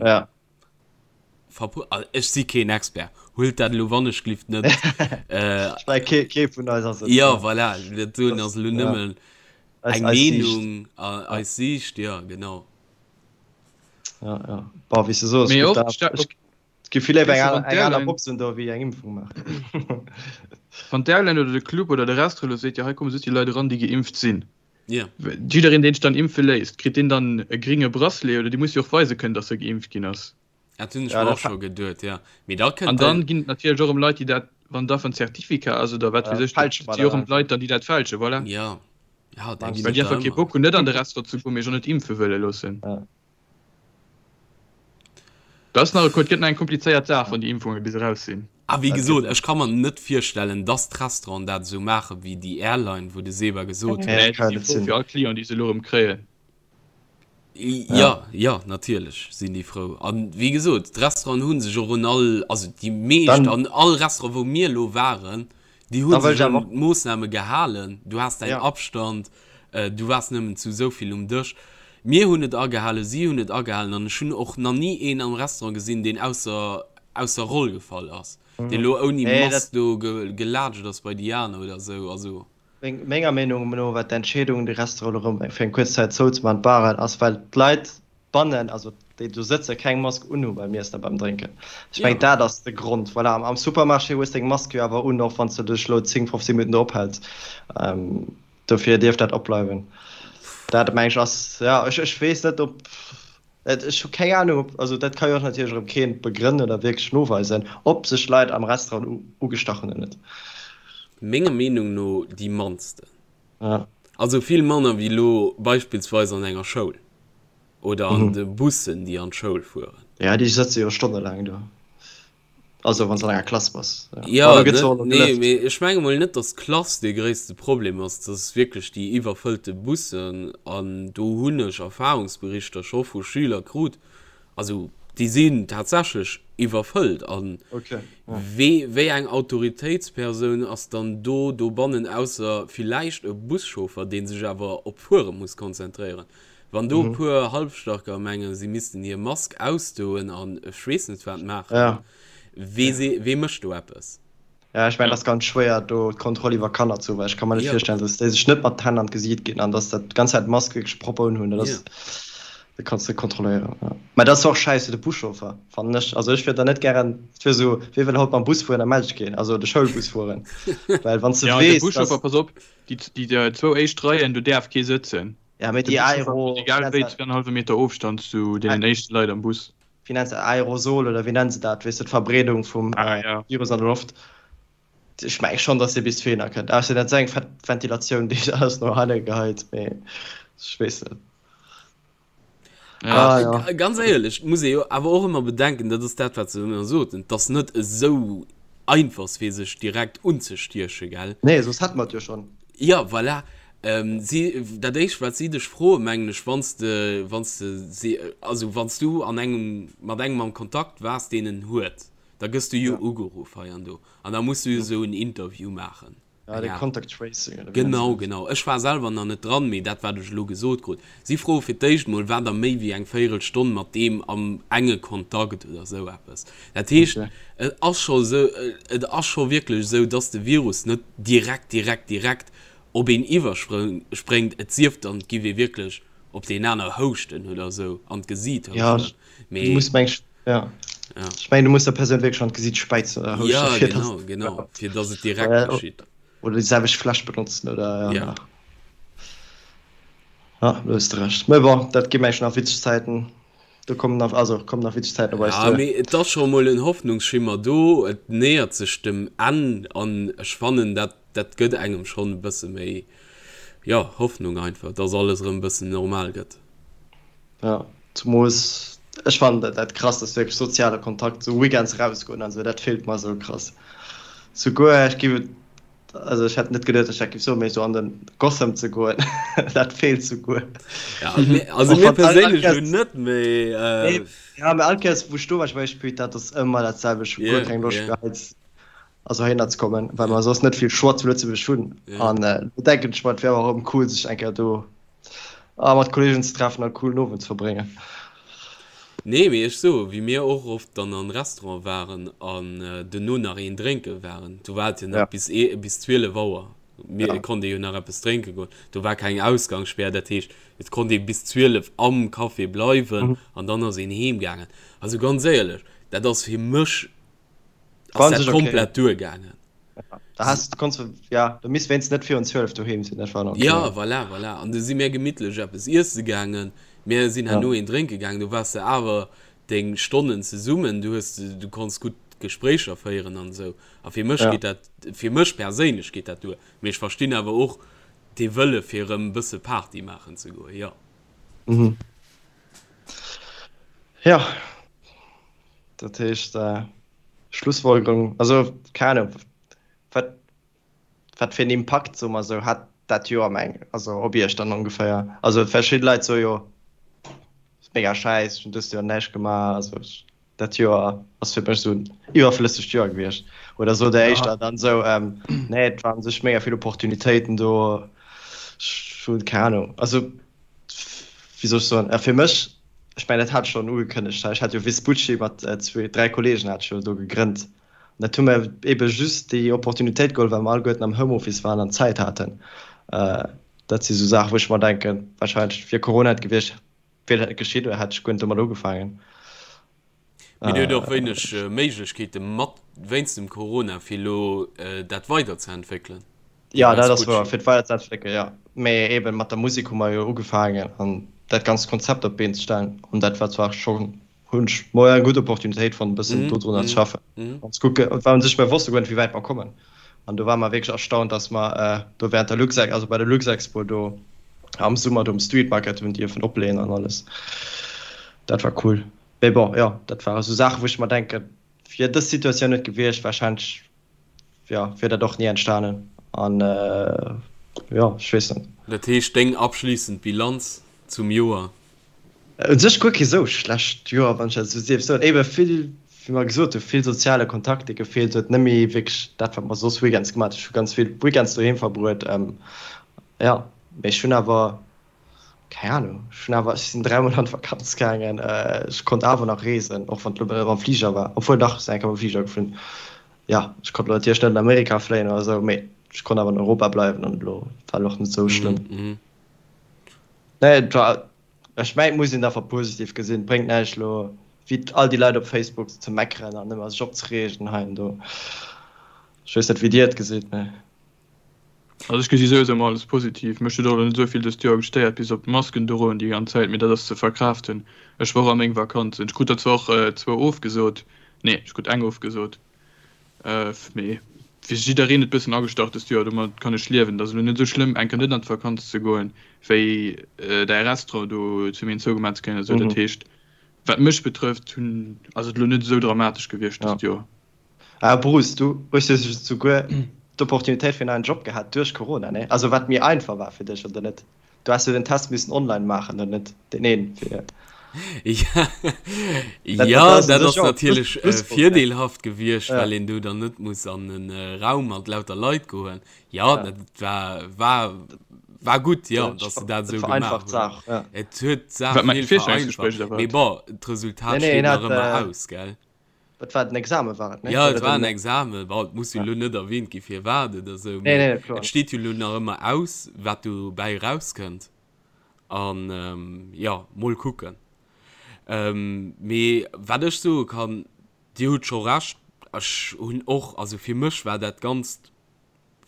verpu-, also ech si keen Expert, huelt dat elo wannechglift net. Ech mengen kee vun eis ass et. Jo voilà, dat doen ass elo nëmmen eng Meenung, eis Siicht, jo genau. Jo, jo, bon wéi s de soos, et gëtt Et gi vill léiwer eng eng aner Box un do wéi eng Impfung maachen. Wann d'Airline oder de Club oder de Restaurant elo seet, jo hei komme just déi Leit eran, déi geimpft sinn. Yeah. Jiddereen deen sech dann impfe léisst, kritt deen dann e gringe Bracelet oder dee muss jo och weise kënnen, datt e geimpft ginn ass. Dat hunn ech mer och scho geduet, jo. Mee da kënnt. An dann ginn et natierlech och erëm Leit, déi dat, wann da en Certificat ass oder wat weess ech, dat si och erëm Leit dann, déi dat fälschen, voilà. Jo, jo, da ginn et der ëmmer. Well déi einfach kee Bock hunn, net an de Restaurant ze goen, mee sech och net impfe wëlle loossen. Dat ass nach e, et gëtt nach eng komplizéiert Saach, wann déi Impfunge bis eraus sinn. A wéi gesot, ech ka mer net virstellen, dass d'Restauranten dat esou maache wéi déi Airline, wou de Seba gesot huet. Nee, déi si frou fir all Client, déi se elo erëm kréien. Jo, jo, natierlech sinn déi frou. A wéi gesot, d'Restauranten hu sech och un all, also déi meescht, an all Restaurant, wou mir elo waren, Déi hu sech un d'Moossname gehalen. Du has däin Abstand, du waars nëmmen zu esou vill um Dësch. Mir hunn et agehalen, si hunn et agehalen an ech hunn och nach ni een am Restaurant gesinn, deen ausser ausser Roll gefall ass, deen elo ouni Mask do gelaatscht ass bei déi aner oder esou. Also. Menger Meenung no war d'Entscheedung, de Restaurant elo erëm fir eng kuerz Zäit zouzemaachen, d'Baren, ass well d'Leit bannen, also déi do sëtzen, keng Mask unhu beim Iessen a beim Drénken. Ech mengen, dat ass de Grond. Voilà, am Supermarché hues deng Mask jo awer un, och wann s de dech elo 10, 15 Minutten do ophäls. Dofir dierf dat opbleiwen. Dat, meng ech, ass, ja, ech, ech weess net, ob, ech hu keng Anung, ob, also dat ka jo och natierlech erëm keen begrënnen oder wierklech noweisen, ob sech Leit am Restaurant ugestach hunn oder net. Menger Meenung no déi mannsten. Also vill manner wéi elo beispillsweis an enger Schoul oder an de Bussen, déi an d'Schoul fueren. Ja, déi sëtze jo stonnelaang do. Also wann s an enger Klass bass. Jo, nee, mee ech menge mol net, datt d'Klass dee gréisste Problem ass. Dat ass wierklech déi iwwerfëllte Bussen. An do hunn ech Erfahrungsberichter scho vu Schüler krut, also. Déi sinn tatsächlech iwwerfëllt. A wee, wéi eng Autoritéitspersoun ass dann do dobannen, ausser villäicht e Buschauffer, dee sech awer op d'Fuere muss konzentréieren? Wann do e puer Halbstarker mengen, si missten hir Mask ausdoen an ech weess net wat maachen, wee, wee mécht do eppes? Ja, ech mengen, et ass ganz schwéier, do d'Kontroll iwwer Kanner ze hunn, well ech ka mer net virstellen, dass déi sech net mat d'Hänn an d'Gesiit ginn an dass dat d'ganz Zäit d'Mask wierklech propper unhunn. Dat ass, dat kanns de net kontrolléieren. Ja. Mä dat ass och schäiss fir de Buschauffer, fannen ech. Also ech wier da net gären, et wier esou, wee wëll haut mam Bus fueren? Da mellt ech keen, also de Schoulbus fueren. Well wann s de Ja, de weess, Buschauffer, dass. pass op, déi, déi zwou éischt Reien, do däerf kee sëtzen. Ja, mee De déi Buschauffer Aero, huet wéi egal nennt wéi se dat? zweienhallwe Meter Ofstand zu deenen éischte Leit am Bus. Wéi nennt se dat, Aerosol oder wéi nennen se dat, weess de, d'Verbreedung vum Virus an der Loft. Ech menge schonn, datt dee bis dohinner kënnt, ausser dat ass eng fett Ventilatioun, déi alles no hanne geheit, mee ech weess net. Ah, ja. Ganz éierlech, muss ee jo awer och ëmmer bedenken, dat ass dat, wat se ëmmer soten, et ass net esou einfach, fir sech direkt unzestiechen, gell? Nee, soss hätte mer et jo schonn. Ja, voilà. Si, dat éischt wat si dech froen, mengen ech, wann s de, wann s de si, also wann s du an engem, mat engem am Kontakt waars, deen en huet, da gëss du jo ugeruff hei an do an da muss du jo esou en Interview maachen. Ja, de Contact Tracing oder wéi nennt se dat? Genau, genau. Ech war selwer nach net dran, mee dat wat ech elo gesot krut. Si froe fir d'éischt mol, war der méi wéi eng Véierelstonn mat deem am enge Kontakt oder esou eppes. Dat heescht, et ass scho esou, et ass scho wierklech esou, dass de Virus net direkt, direkt, direkt op een iwwerspréngt, et sief dann, et giff ee wierklech op deen aner houschten oder esou, an d'Gesiit houschten. Mee. Ja, du muss meng, ja. Ja. Ech mengen, du muss der Persoun wierklech an d'Gesiit späizen oder houschten. Ja, fir genau, dass, genau, fir dass et direkt geschitt. Oder déi selwecht Fläsch benotzen oder, ja. Ja. Ja, do hues de Recht. Mee bon, dat gi meng nach witzeg Zäiten. Do kommen nach, also kommen nach witzeg Zäiten op eis duer. Ja, mee et ass scho mol en Hoffnungsschimmer do, et nähert sech dem Enn an ech fannen, dat dat gëtt engem schonn e bësse méi, jo, Hoffnung einfach, dass alles erëm e bëssen normal gëtt. Ja, zumols ech fannen dat dat krass ass wierklech soziale Kontakt, sou Weekends erausgoen an sou, dat feelt mer sou krass. Souguer ech giff et, also ech hätt net geduet, dass ech dat giff soen, mee sou an den Gotham ze goen, dat feelt souguer. Ja, also mir perséinlech elo net, mee. Nee, ja, mee all Kéiers wou ech do war, ech war echt put, dat ass ëmmer dat selwecht, ech hu guer keng Loscht méi hei also heihinner ze kommen, well mer soss net vill Choix zu Lëtzebuerg hunn. An do denken ech mer, et wär och erëm cool, sech eng Kéier do mat Kolleegen ze treffen a coolen Owend ze verbréngen. Nee, mee ech soe wéi mir och oft dann an Restaurant waren an duerno nach een drénke waren, do war et jo nach bis bis 12 Auer, mir et konnt ee jo nach eppes drénke goen, do war keng Ausgangsspär, dat heescht et konnt ee bis 12 am Café bleiwen an dann ass een heem gaangen. Also ganz éierlech, dat ass fir mech ass dat komplett duergaangen. Da has du konns ja du misst wéinst net virun 12 doheem sinn, dat war dann okay. Ja voilà, voilà. An du si mir gemittlech eppes iesse gaangen, mir sinn herno ja. een drénke gaangen, du waars de awer deng Stonnen zesummen, du hues du konns gutt Gespréicher féieren an esou. A fir mech ja. geet dat fir mech perséinlech geet dat duer. Mee ech verstinn awer och dee Wëlle fir erëm e bësse Party maachen ze goen, jo. Mhm. Ja. Dat heescht, Schlussfolgerung, also keng Ahnung, wat, wat fir en Impakt, soe mer esou, hat dat Joer meng, also op Iech dann ongeféier? Also verschidde Leit soe jo, ass mega schäiss, ech hunn dëst Joer näischt gemaach, also dat Joer ass fir mech esou en iwwerflëssegt Joer gewiescht. Oder sot der éischter dann esou, nee, et waren sech mega vill Opportunitéiten do, ech hunn keng Ahnung, also wéi soll ech soen, fir mech Ech mengen, dat hat ech schonn ugekënnegt hei. Ech hat jo Vespucci mat zwee, dräi Kolleegen hat ech jo do gegrënnt. An dat hu mer eebe just déi Opportunitéit geholl, well mer alleguerten am Homeoffice waren an Zäit haten. Dat si sou Saachen, wou ech mer denken, warscheinlech wier Corona net gewiescht, wier dat net geschitt oder hätt ech guer net domat ugefaangen. Mee Dir hutt och wéineg Méiglechkeete mat wéinst dem Corona, fir elo dat weiderzeentwéckelen? Jo, dat ass wouer, fir et weiderzeentwéckelen, jo. Mee eeben mat der Musek hu mer jo ugefaangen an dat ganzt Konzept op d'Been ze stellen. An dat war zwar schonn, hunn ech mol eng gutt Opportunitéit fonnt, e bëssen dodrunner ze schaffen an ze kucken, well u sech mir wosste guer net, wéi wäit mer kommen. An do ware mer wierklech erstaunt, dass mer do während der Luxex, also bei der Luxexpo do am Summer do um Street Market hunn dierfen opleeën an alles. Dat war cool. Mee bon, jo, dat ware sou Saachen, wou ech mer denken, wier dës Situatioun net gewiescht, warscheinlech, jo, wier dat och ni entstanen. An, jo, ech weess net. Dat heescht, deng abschliissend Bilanz zum Joer? U sech guer kee sou schlecht Joer, wann ech dat esou dierf soen. Ebe vill, wéi mer gesot hunn, vill soziale Kontakt, dee gefeelt huet, net méi wierklech dat, wat mer soss weekends gemaach hunn. Ech hu ganz vill Weekends doheem verbruet, jo. Mee ech hunn awer, keng Anung, ech hunn awer, ech sinn dräimol an d'Vakanz gaangen, ech konnt awer nach reesen, och wann et elo net mam Fliger war, obwuel dach, ech sinn eng Kéier mam Fliger geflunn. Jo, ech konnt elo natierlech net an Amerika fléien oder esou, mee ech konnt awer an Europa bleiwen an elo war elo och net esou schlëmm. Nee, et war, ech mengen, et muss een et einfach positiv gesinn. Et bréngt näischt elo wéi all déi Leit op Facebook ze meckeren an ëmmer sech opzereegen hei an do. Ech weess net, wéi Dir et gesitt, mee. Also ech gesi souwisou ëmmer alles positiv. Mech huet och elo net esou vill dëst Joer gestéiert, bis op d'Masken droen déi ganz Zäit, mee dat ass ze verkraaften. Ech war och a meng Vakanzen. Ech krut der zwar och zwou ofgesot, nee, ech krut eng ofgesot. Mee fir jiddereen et bëssen agestach dëst Joer, domat kann ech liewen. Et ass elo net esou schlëmm eng Kéier net an d'Vakanz ze goen, wéi däi Restaurant do zu Méint zougemaach ze kréien oder esou. Dat heescht, wat mech betrëfft, hunn, ass et elo net esou dramatesch gewiescht dëst Joer. Ah Bruce, du hues jo souguer d'Opportunitéit fir en neien Job gehat duerch Corona, nee? Also wat méi einfach war fir dech, oder net? Du has jo den Test missen online maachen, oder net? Deen een fir. Ja, dat, ja, dat ass natierlech äh, virdeelhaft gewiescht, ja. well een do dann net muss an den äh, Raum mat lauter Leit goen. Ja, ja. dat war, war, war gut, ja, dass se dat esou gemaach hunn. Ja. Et huet d'Saach vill vereinfacht. Mee bon, d'Resultat nee, nee, steet nach ëmmer äh, aus, gell? Et war den Examen war et, ne? Ja, et war en Examen. Bon, et muss jo elo net erwähnt gi firwat oder esou, mee nee, nee, kloer. Et steet jo elo nach ëmmer aus, wat dobäi erauskënnt. An jo, mol kucken. Mee wat ech soe kann, Dir hutt scho Recht, ech hunn och, also fir mech war dat Ganzt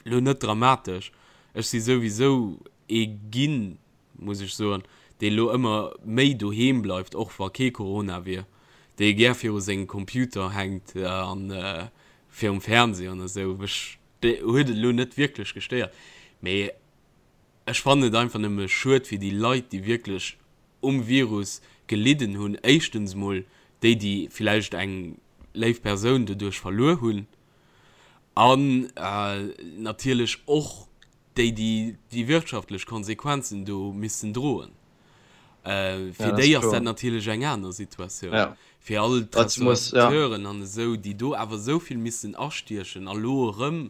elo net dramatesch. Ech si souwisou ee ginn, muss ech soen, dee elo ëmmer méi doheem bleift, och wa kee Corona wier, dee gär viru sengem Computer hänkt a virum Fernseh an esou. Mech huet et elo net wierklech gestéiert, mee ech fannen et einfach nëmme schued fir déi Leit, déi wierklech um Virus gelidden hunn. Éischtens mol déi, déi villäicht eng léif Persoun doduerch verluer hunn an natierlech och déi, déi déi wirtschaftlech Konsequenzen do missten droen. Fir déi ass dat natierlech eng aner Situatioun. Fir all d'Restaurateuren an esou, déi do awer esou vill missten astiechen a lo erëm,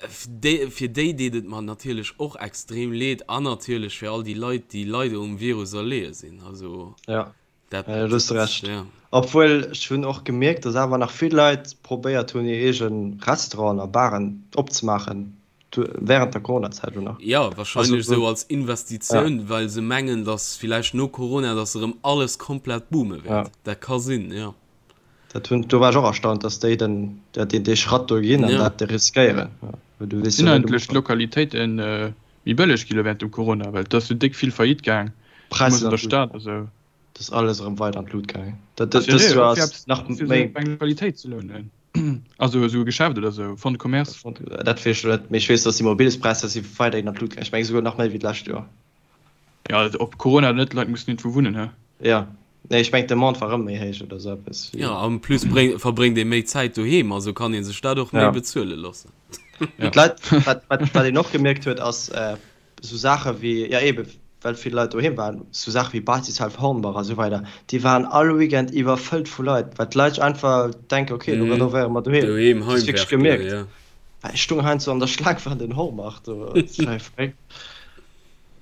fir déi deet et mer natierlech och extrem leed an natierlech fir all déi Leit, déi leider um Virus erleeë sinn. Also. Dat, ja, du hues Recht. Ja. Obwuel ech hunn och gemierkt, dass awer nach vill Leit probéiert hunn, hir eege Restauranten a Baren opzemaachen während der Corona-Zäit elo nach. Ja, wahrscheinlech also, esou als Investitioun, ja. well se mengen, dass villäicht no Corona, dass erëm alles komplett boome wäert. Ja. Dat ka sinn, ja. Dat hunn, do war ech och erstaunt, dass déi den, ja, deen, dee Schratt do ginn an ja. dat riskéieren. Ja. Du weess Sinn eigentlech d'Lokalitéiten äh, méi bëlleg gi lo während dem Corona, well et ass jo déck vill Faillite gaang, Präisser an der Stad a sou. Dat ass alles erëm weider an d'Lut gaangen. Dat dëst Joer ass nach méi. Eng Lokalitéit ze lounen, also esou e Geschäft oder esou, Fonds de commerce. Dat weess ech net, mee ech weess, datt d'Immobiliespräisser si weiderhin an d'Lut gaangen. Ech mengen esouguer nach méi wéi d'lescht Joer. Ja, ob Corona oder net, d'Leit mussen iergendwou wunnen, he? Jo, nee, ech mengen d'Demande war erëm méi héich oder esou eppes. Jo, en plus verbréngt ee méi Zäit doheem, also kann ee sech dat och méi bezuele loossen. D'Leit, wat wat een och gemierkt huet, ass, Sou Saache wéi, jo eebe well vill Leit doheem waren, sou Saache wéi Basishalf Hornbach a sou weider, déi waren all Weekend iwwerfëllt vu Leit, well d'Leit sech einfach denken, ok, elo renovéiere mer doheem. Doheem Dat hues wierklech gemierkt. Ja. Well ech stoung heiansdo an der Schlaang fir an den Hornbach do, dat war verréckt.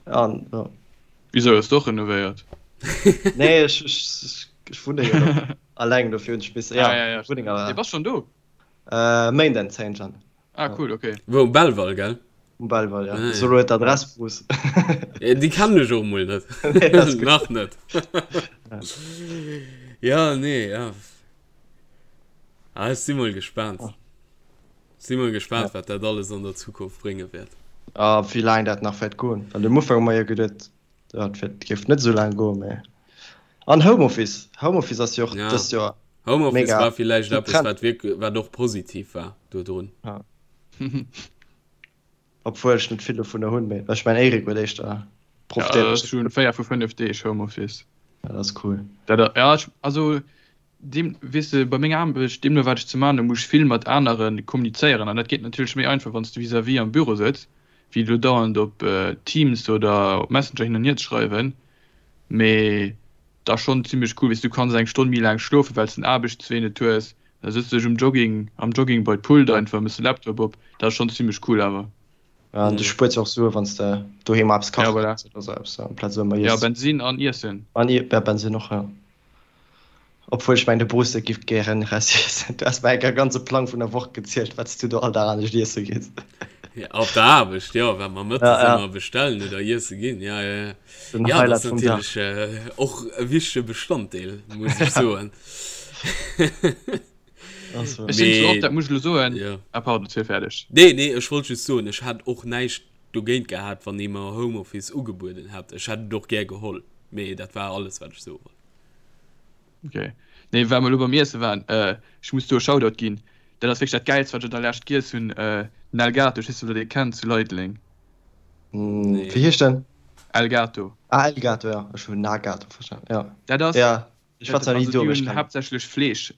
An jo. Wisou, hues de och renovéiert? Nee, ech, ech, ech wunne jo nach alleng, dofir hunn ech misse, ja, Wunneng. Ah, ja, ja, bass schonn do? Méinden 10 Jan. Ah, cool, okay. Wou, um Belval, gell? Um Belval, ja. Ah, ja. So huet d'Adress, Bruce. Ja, déi kennen ech och mol net. Nee, Nach net. Ja, nee, ja. Ah, ech si mol gespaant. Oh. Si mol gespaant, ja. wat dat alles an der Zukunft brénge wäert. Ah, wéi laang dat nach wäert goen. Well um Ufank hu mer jo geduet, dat géif net esou laang goen, mä. An Homeoffice. Homeoffice ass jo och ja. dëst Joer. Homeoffice mega war villäicht eppes, wat wierk, wat och positiv war dodrun. Ja. Obwuel ech net vill dovunner hunn, mee ech mengen Eric huet éischter profitéiert. Ja, ech hunn 4 vu 5 Deeg Homeoffice. Ja, dat ass cool. Dat, ja, ech, also deem, weess de, bei menger Aarbecht, deemno wat ech ze man hunn, muss ech vill mat anere kommunizéieren an dat geet natierlech méi einfach, wann s de vis-à-vis am Büro sëtz, wéi elo dauernd op Teams oder op Messenger hin an hier ze schreiwen. Mee et ass schonn zimmlech cool, weess du kanns eng Stonn méi laang schlofen, well s den Aarbechtswee net hues. Da sëtz dech um Jogging, am Jogging bei d'Pult einfach, mëss de Laptop op. Dat ass schonn zimmlech cool awer. Ja, an du spuers jo och Sue wann s de doheem eppes kache Ja, voilà. gees oder sou eppes, amplaz ëmmer Ja, iess. Bensin an Iessen. An ja, Bensin och, ja. Obwuel ech mengen de Bruce giff gären Rest iessen. Du has mer enker e ganze Plang vun der Woch gezielt wat s du do all Dag anescht iesse gees. Ja, op der Aarbecht, jo, wat mer Ja, mëttes ja. ëmmer bestellen oder iesse ginn, ja, ja, ja. Den Ja, dat ass Highlight vum Dag. natierlech och e wichtege Bestanddeel, muss ech soen. Also. Ech sinn zwar och, Mee, dat muss ech elo soen, jo. ah pardon, ziel fäerdeg. Nee, nee, ech wollt just soen, ech hätt och näischt dogéint gehat, wann ee mer Homeoffice ugebueden hätt. Ech hätt et och gär geholl, mee dat war alles, wat ech soe wollt. Ok. Nee, well mer elo beim Iesse waren, ech muss do e Shoutout ginn, dat ass wierklech dat Gäilst, wat ech an der Lescht giess hunn, den El Gato, ech weess net, ob der dee kennt, zu Leideleng. Nee. Wéi heescht den? El Gato. Ah, El Gato, ja. Ech hunn Nagato verstanen, ja. Dat ass, Ja, ech war zwar ni also do, déi mee ech hunn kennen. haaptsächlech Fleesch,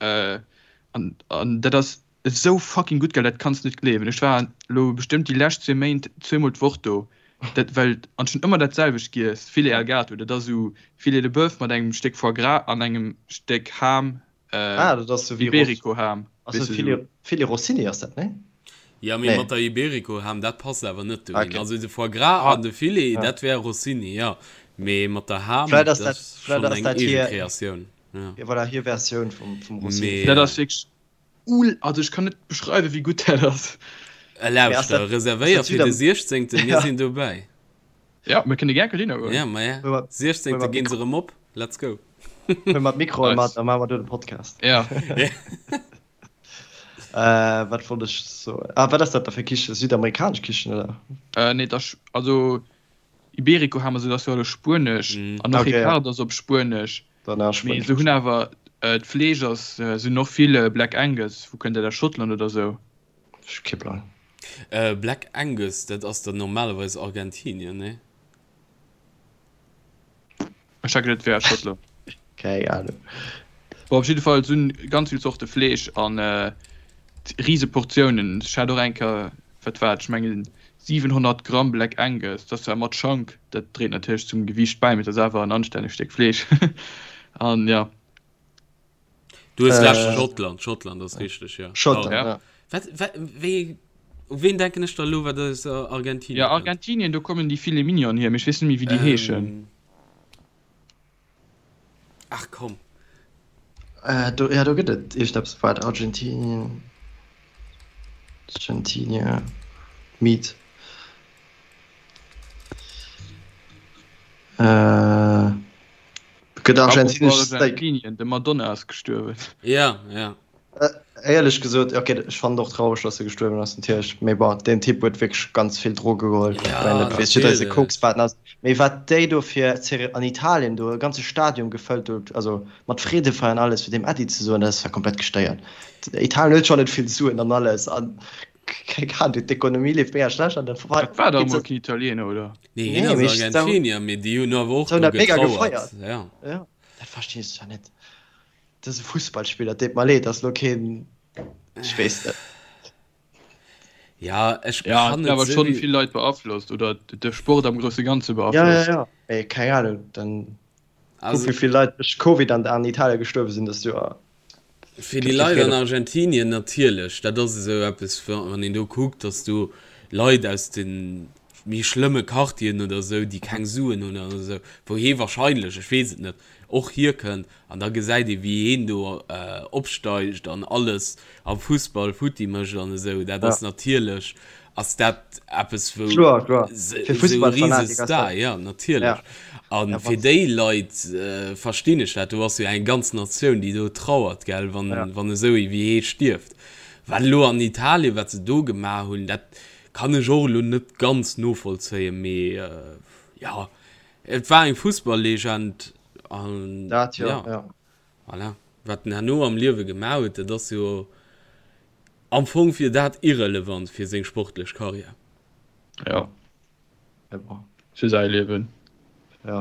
an, an dat ass esou fucking gutt, gell, dat kanns de net gleewen. Ech war elo bestëmmt déi lescht zwee Méint zweemol d'Woch do, dat well, an ech hunn ëmmer dat selwecht giess, Filet al Gato, dat ass esou Filet de Boeuf mat engem Stéck Foie gras an engem Stéck Ham, Ah, dat ass sou wéi Iberico Ham, Ass weess dat de sou. Filet, Filet Rossini ass dat, nee? Ja, mee Nee. mat der Iberico Ham, dat passt awer net dohin. Okay. Also de Foie gras Ah, an de Filet, Ja. dat wär Rossini, ja. Mee mat der Ham, Vläit ass dat dat, ass vläit schonn ass eng dat eege hir, Kreatioun, ja. ja voilà, hir Versioun vum, vum Rossini. Mee. Dat ass wierklech ul, also ech kann net beschreiwen, wéi gutt dat ass. Mee ass Lauschter, dat, ass reservéier dat fir de Südam, 16., mir ja. sinn dobäi. Ja, mir kënne gär dohinner goen. Ja, ma ja. Huel mer, huel 16. mer ginn se d'Mikro, erëm op. Let's go. huel mer d'Mikroen mat, Nice. da maache mer do de Podcast. Ja. Äh, wat wollt ech soen? Ah, wat ass dat da fir Kichen? Südamerikanesch Kichen, oder? Äh, nee, dat ass, also Iberico Ham, also dat ass jo alles Spuenesch Mm. an och Okay, ja. Ricardo ass op Spuenesch. Dann ass Mee Spuenesch se hunn Kichen. awer, äh, d'Fleesch ass, se hunn och vill Black Angus, wou kënnt dat aus Schottland oder sou? Ech hu kee Plang. Äh, Black Angus, dat ass dann normalerweis Argentinien, nee? Ech hat geduet, et wär Schottland. Keng Ahnung. Bon, op jidde Fall, se hunn ganz vill Zorte Fleesch an rise Portiounen. Ech hat och eng Kéier, wat war et, ech mengen 700 Gramm Black Angus, dat ass zwar mat Schank, dat dréit natierlech zum Gewiicht bäi, mee et ass awer en anstännegt Stéck Fleesch. An jo. Du hues recht, Äh, Schottland, Schottland ass richteg, ja. Schottland, Pardon. ja. Wat, wat, wéi, u ween denken ech da elo, wat aus Argentinien Ja, kënnt? Argentinien, do kommen déi Filet Mignon hier, mee ech weess net méi, wéi déi heeschen. Ähm, ach komm. Äh, do, ja, do gëtt et iergendeppes, waart, Argentinien, Argentinien, Meat. Äh, Gëtt argentinesch Steak. Argentinien, de Madonna ass gestuerwen. Ja, ja. Éierlech gesot, ok, ech fannen et och traureg, dass e gestuerwen ass natierlech, mee bon, deen Typ huet wierklech ganz vill Droge geholl. Ech Ja, mengen, dat weess jidder, dee natierlech. Koksbaten ass. Mee wat déi do fir Zere an Italien do e ganze Stadion gefëllt huet, also mat Freedefeier an alles, fir deem Äddi ze soen, dat ass war komplett gestéiert. Italien huet schonn net vill Suen an alles an Keng Ahnung, d'Ekonomie leeft mega schlecht an dann Dat war dach emol keen Italiener, oder? Nee, hien Nee, ass mee ech Argentinier, mee déi hunn awer och se hunn do dat mega getrauert. gefeiert. Ja. Ja, dat verstinn ech zwar net. Dat ass e Fussballspiller, deet mer leed, dat ass elo keen, ech weess net. Ja, ech Ja, kann et et awer sou schonn wéi. vill Leit beaflosst oder de Sport am grousse Ganze Ja, ja, beaflosst. ja, mee keng Ahnung, dann kuck Also, wéi vill Leit duerch Covid an an Italien gestuerwe sinn dëst Joer. Fir déi Leit an Argentinien natierlech, dat ass esou eppes, wann een do kuckt, datt do Leit aus de méi schlëmme Quartieren oder esou, déi keng Suen hunn oder esou, wou hee wahrscheinlech, ech weess et net, och hierkënnt an da gesäit ee wéi heen do opsteigt an alles am Fussball futti mécht an esou, dat ass natierlech Ass dat eppes wou Kloer, kloer. Fir esou e Fussballfanatiker ass Risestar, dat. ja natierlech. Ja. A Ja, fir wann déi Leit verstinn ech dat, do ass jo eng ganz Natioun déi do trauert, gell, wann ja. wann esou ee wéi hee stierft. Wat elo an Italien, wat se do gemaach hunn, dat kann ech och elo net ganz novollzéien, mee jo, et war eng Fussballlegend an Dat jo, ja, ja. voilà. Wat en herno am Liewe gemaach huet, dat ass jo Am Fong wier dat irrelevant fir seng sportlech Karriär. Jo. Mee bon. Fir säi Liewen. Jo,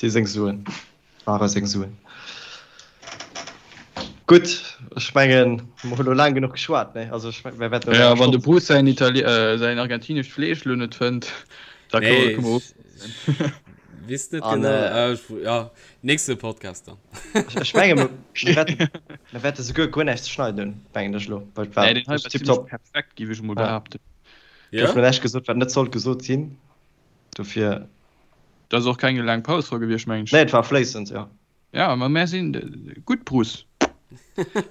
déi seng Suen ware seng Suen. Gutt, ech mengen, mer hu lo laang genuch geschwat, nee? Also ech mengen, mir wäerten Jo, wann de Bruce säin Itali-, säin argentinescht Fleesch lo net fënnt, da Nee, kënne mer ofschléissen. Weess net genau. Äh, ja, nächste Podcast dann. Ech menge mir mir wäerte souguer guer näischt ze schneiden hunn, mengen ech elo. Well et war Nee, den hei war tiptop. zimmlech perfekt, géif ech emol Ja. behaapten. Ja? Gouf mir näischt gesot, wat net sollt gesot sinn. Dofir. Da ass och keng laang Paus dra gewiescht, mengen ech. Nee, et war fléissend, jo. Ja, ma mär sinn gutt, Bruce.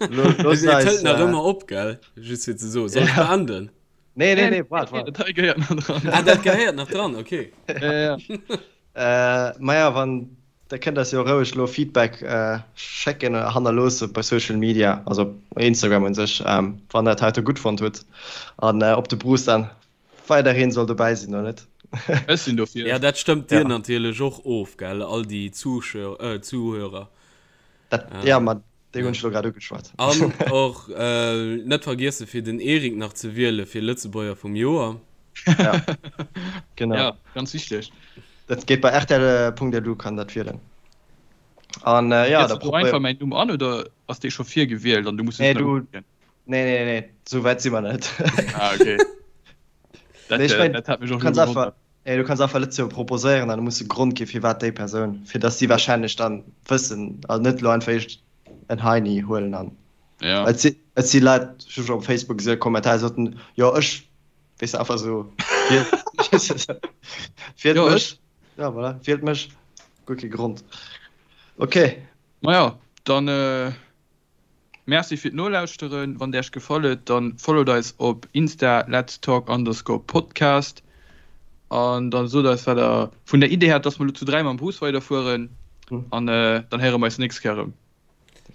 Lo, looss Et eis. hëlt nach Äh, ëmmer op, gell? Just fir ze soen. Soll ech ja. beenden? Nee, nee, nee, waart, waart. Dat hei gehéiert nach dran. Ah, dat gehéiert nach dran, okay. Ja, ja. Äh, maja, wann, da kënnt eis jo roueg lo Feedback äh, schécken oder hannerloosse bei Social Media, also Instagram un sech, ähm, wann der dat heite gutt fonnt hutt an äh, ob de Bruce dann weiderhin soll dobäi sinn oder net. Ech sinn dofir. Ja, dat stëmmt dir Ja. natierlech och of, gell, all déi Zuschauer, äh, Zuhörer. Dat, ja, ma déi hunn ech lo grad ugeschwat. An och net vergiessen fir den Eric nach ze wiele fir Lëtzebuerger vum Joer. Ja, genau. Ja, ganz wichteg. Dat geet bei rtl.lu kann dat wielen. An äh, ja, Gëss da du einfach probéier. mäin Numm an oder ass dee scho virgewielt an du muss Nee, just nach du, uklicken? nee, nee, nee, sou wäit si mer net. Ah, okay. Dat, Nee, ech äh, mein, dat hat mech du och elo kanns einfach, gewonnert. nee, du kanns einfach Lëtzebuerger proposéieren an da muss e Grond gi firwat déi Persoun, fir dass si wahrscheinlech dann wëssen, also net elo einfach eescht en Heini huelen an Ja. et si, et si Leit, ech hu scho op Facebook gesinn, Kommentare soten, jo ech, weess de, einfach esou, wielt, wielt Jo, mech, ech. ja voilà, wielt mech, guer kee Grond. Okay. Maja, dann äh, Merci fir d'Nolauschteren. Wann et Iech gefall huet, dann followt eis op Insta letstalk underscore podcast an dann sot eis wat der vun der Idee haalt, dass mer elo zu 3 mam Bus weiderfueren an dann héiere mer eis nächst Kéier erëm.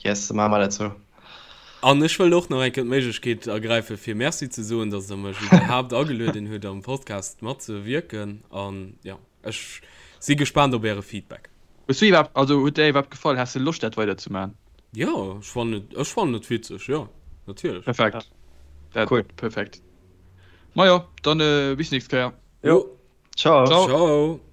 Yes, da maache mer dat sou. An ech wëll och nach eng Kéier d'Méiglechkeet ergräifen, fir Merci ze soen, dass Der mech iwwerhaapt agelueden hutt, am Podcast matzewierken. An jo, ech si gespaant op Äre Feedback. Hues du iwwerhaapt, also huet der iwwerhaapt gefall? Has de Loscht dat weider ze man? Jo, ech fannen et, ech fannen et witzeg, jo, natierlech. Perfekt. Dat, Cool. Perfekt. Majo, dann bis nächst Kéier. Jo. Ciao. Ciao. Ciao.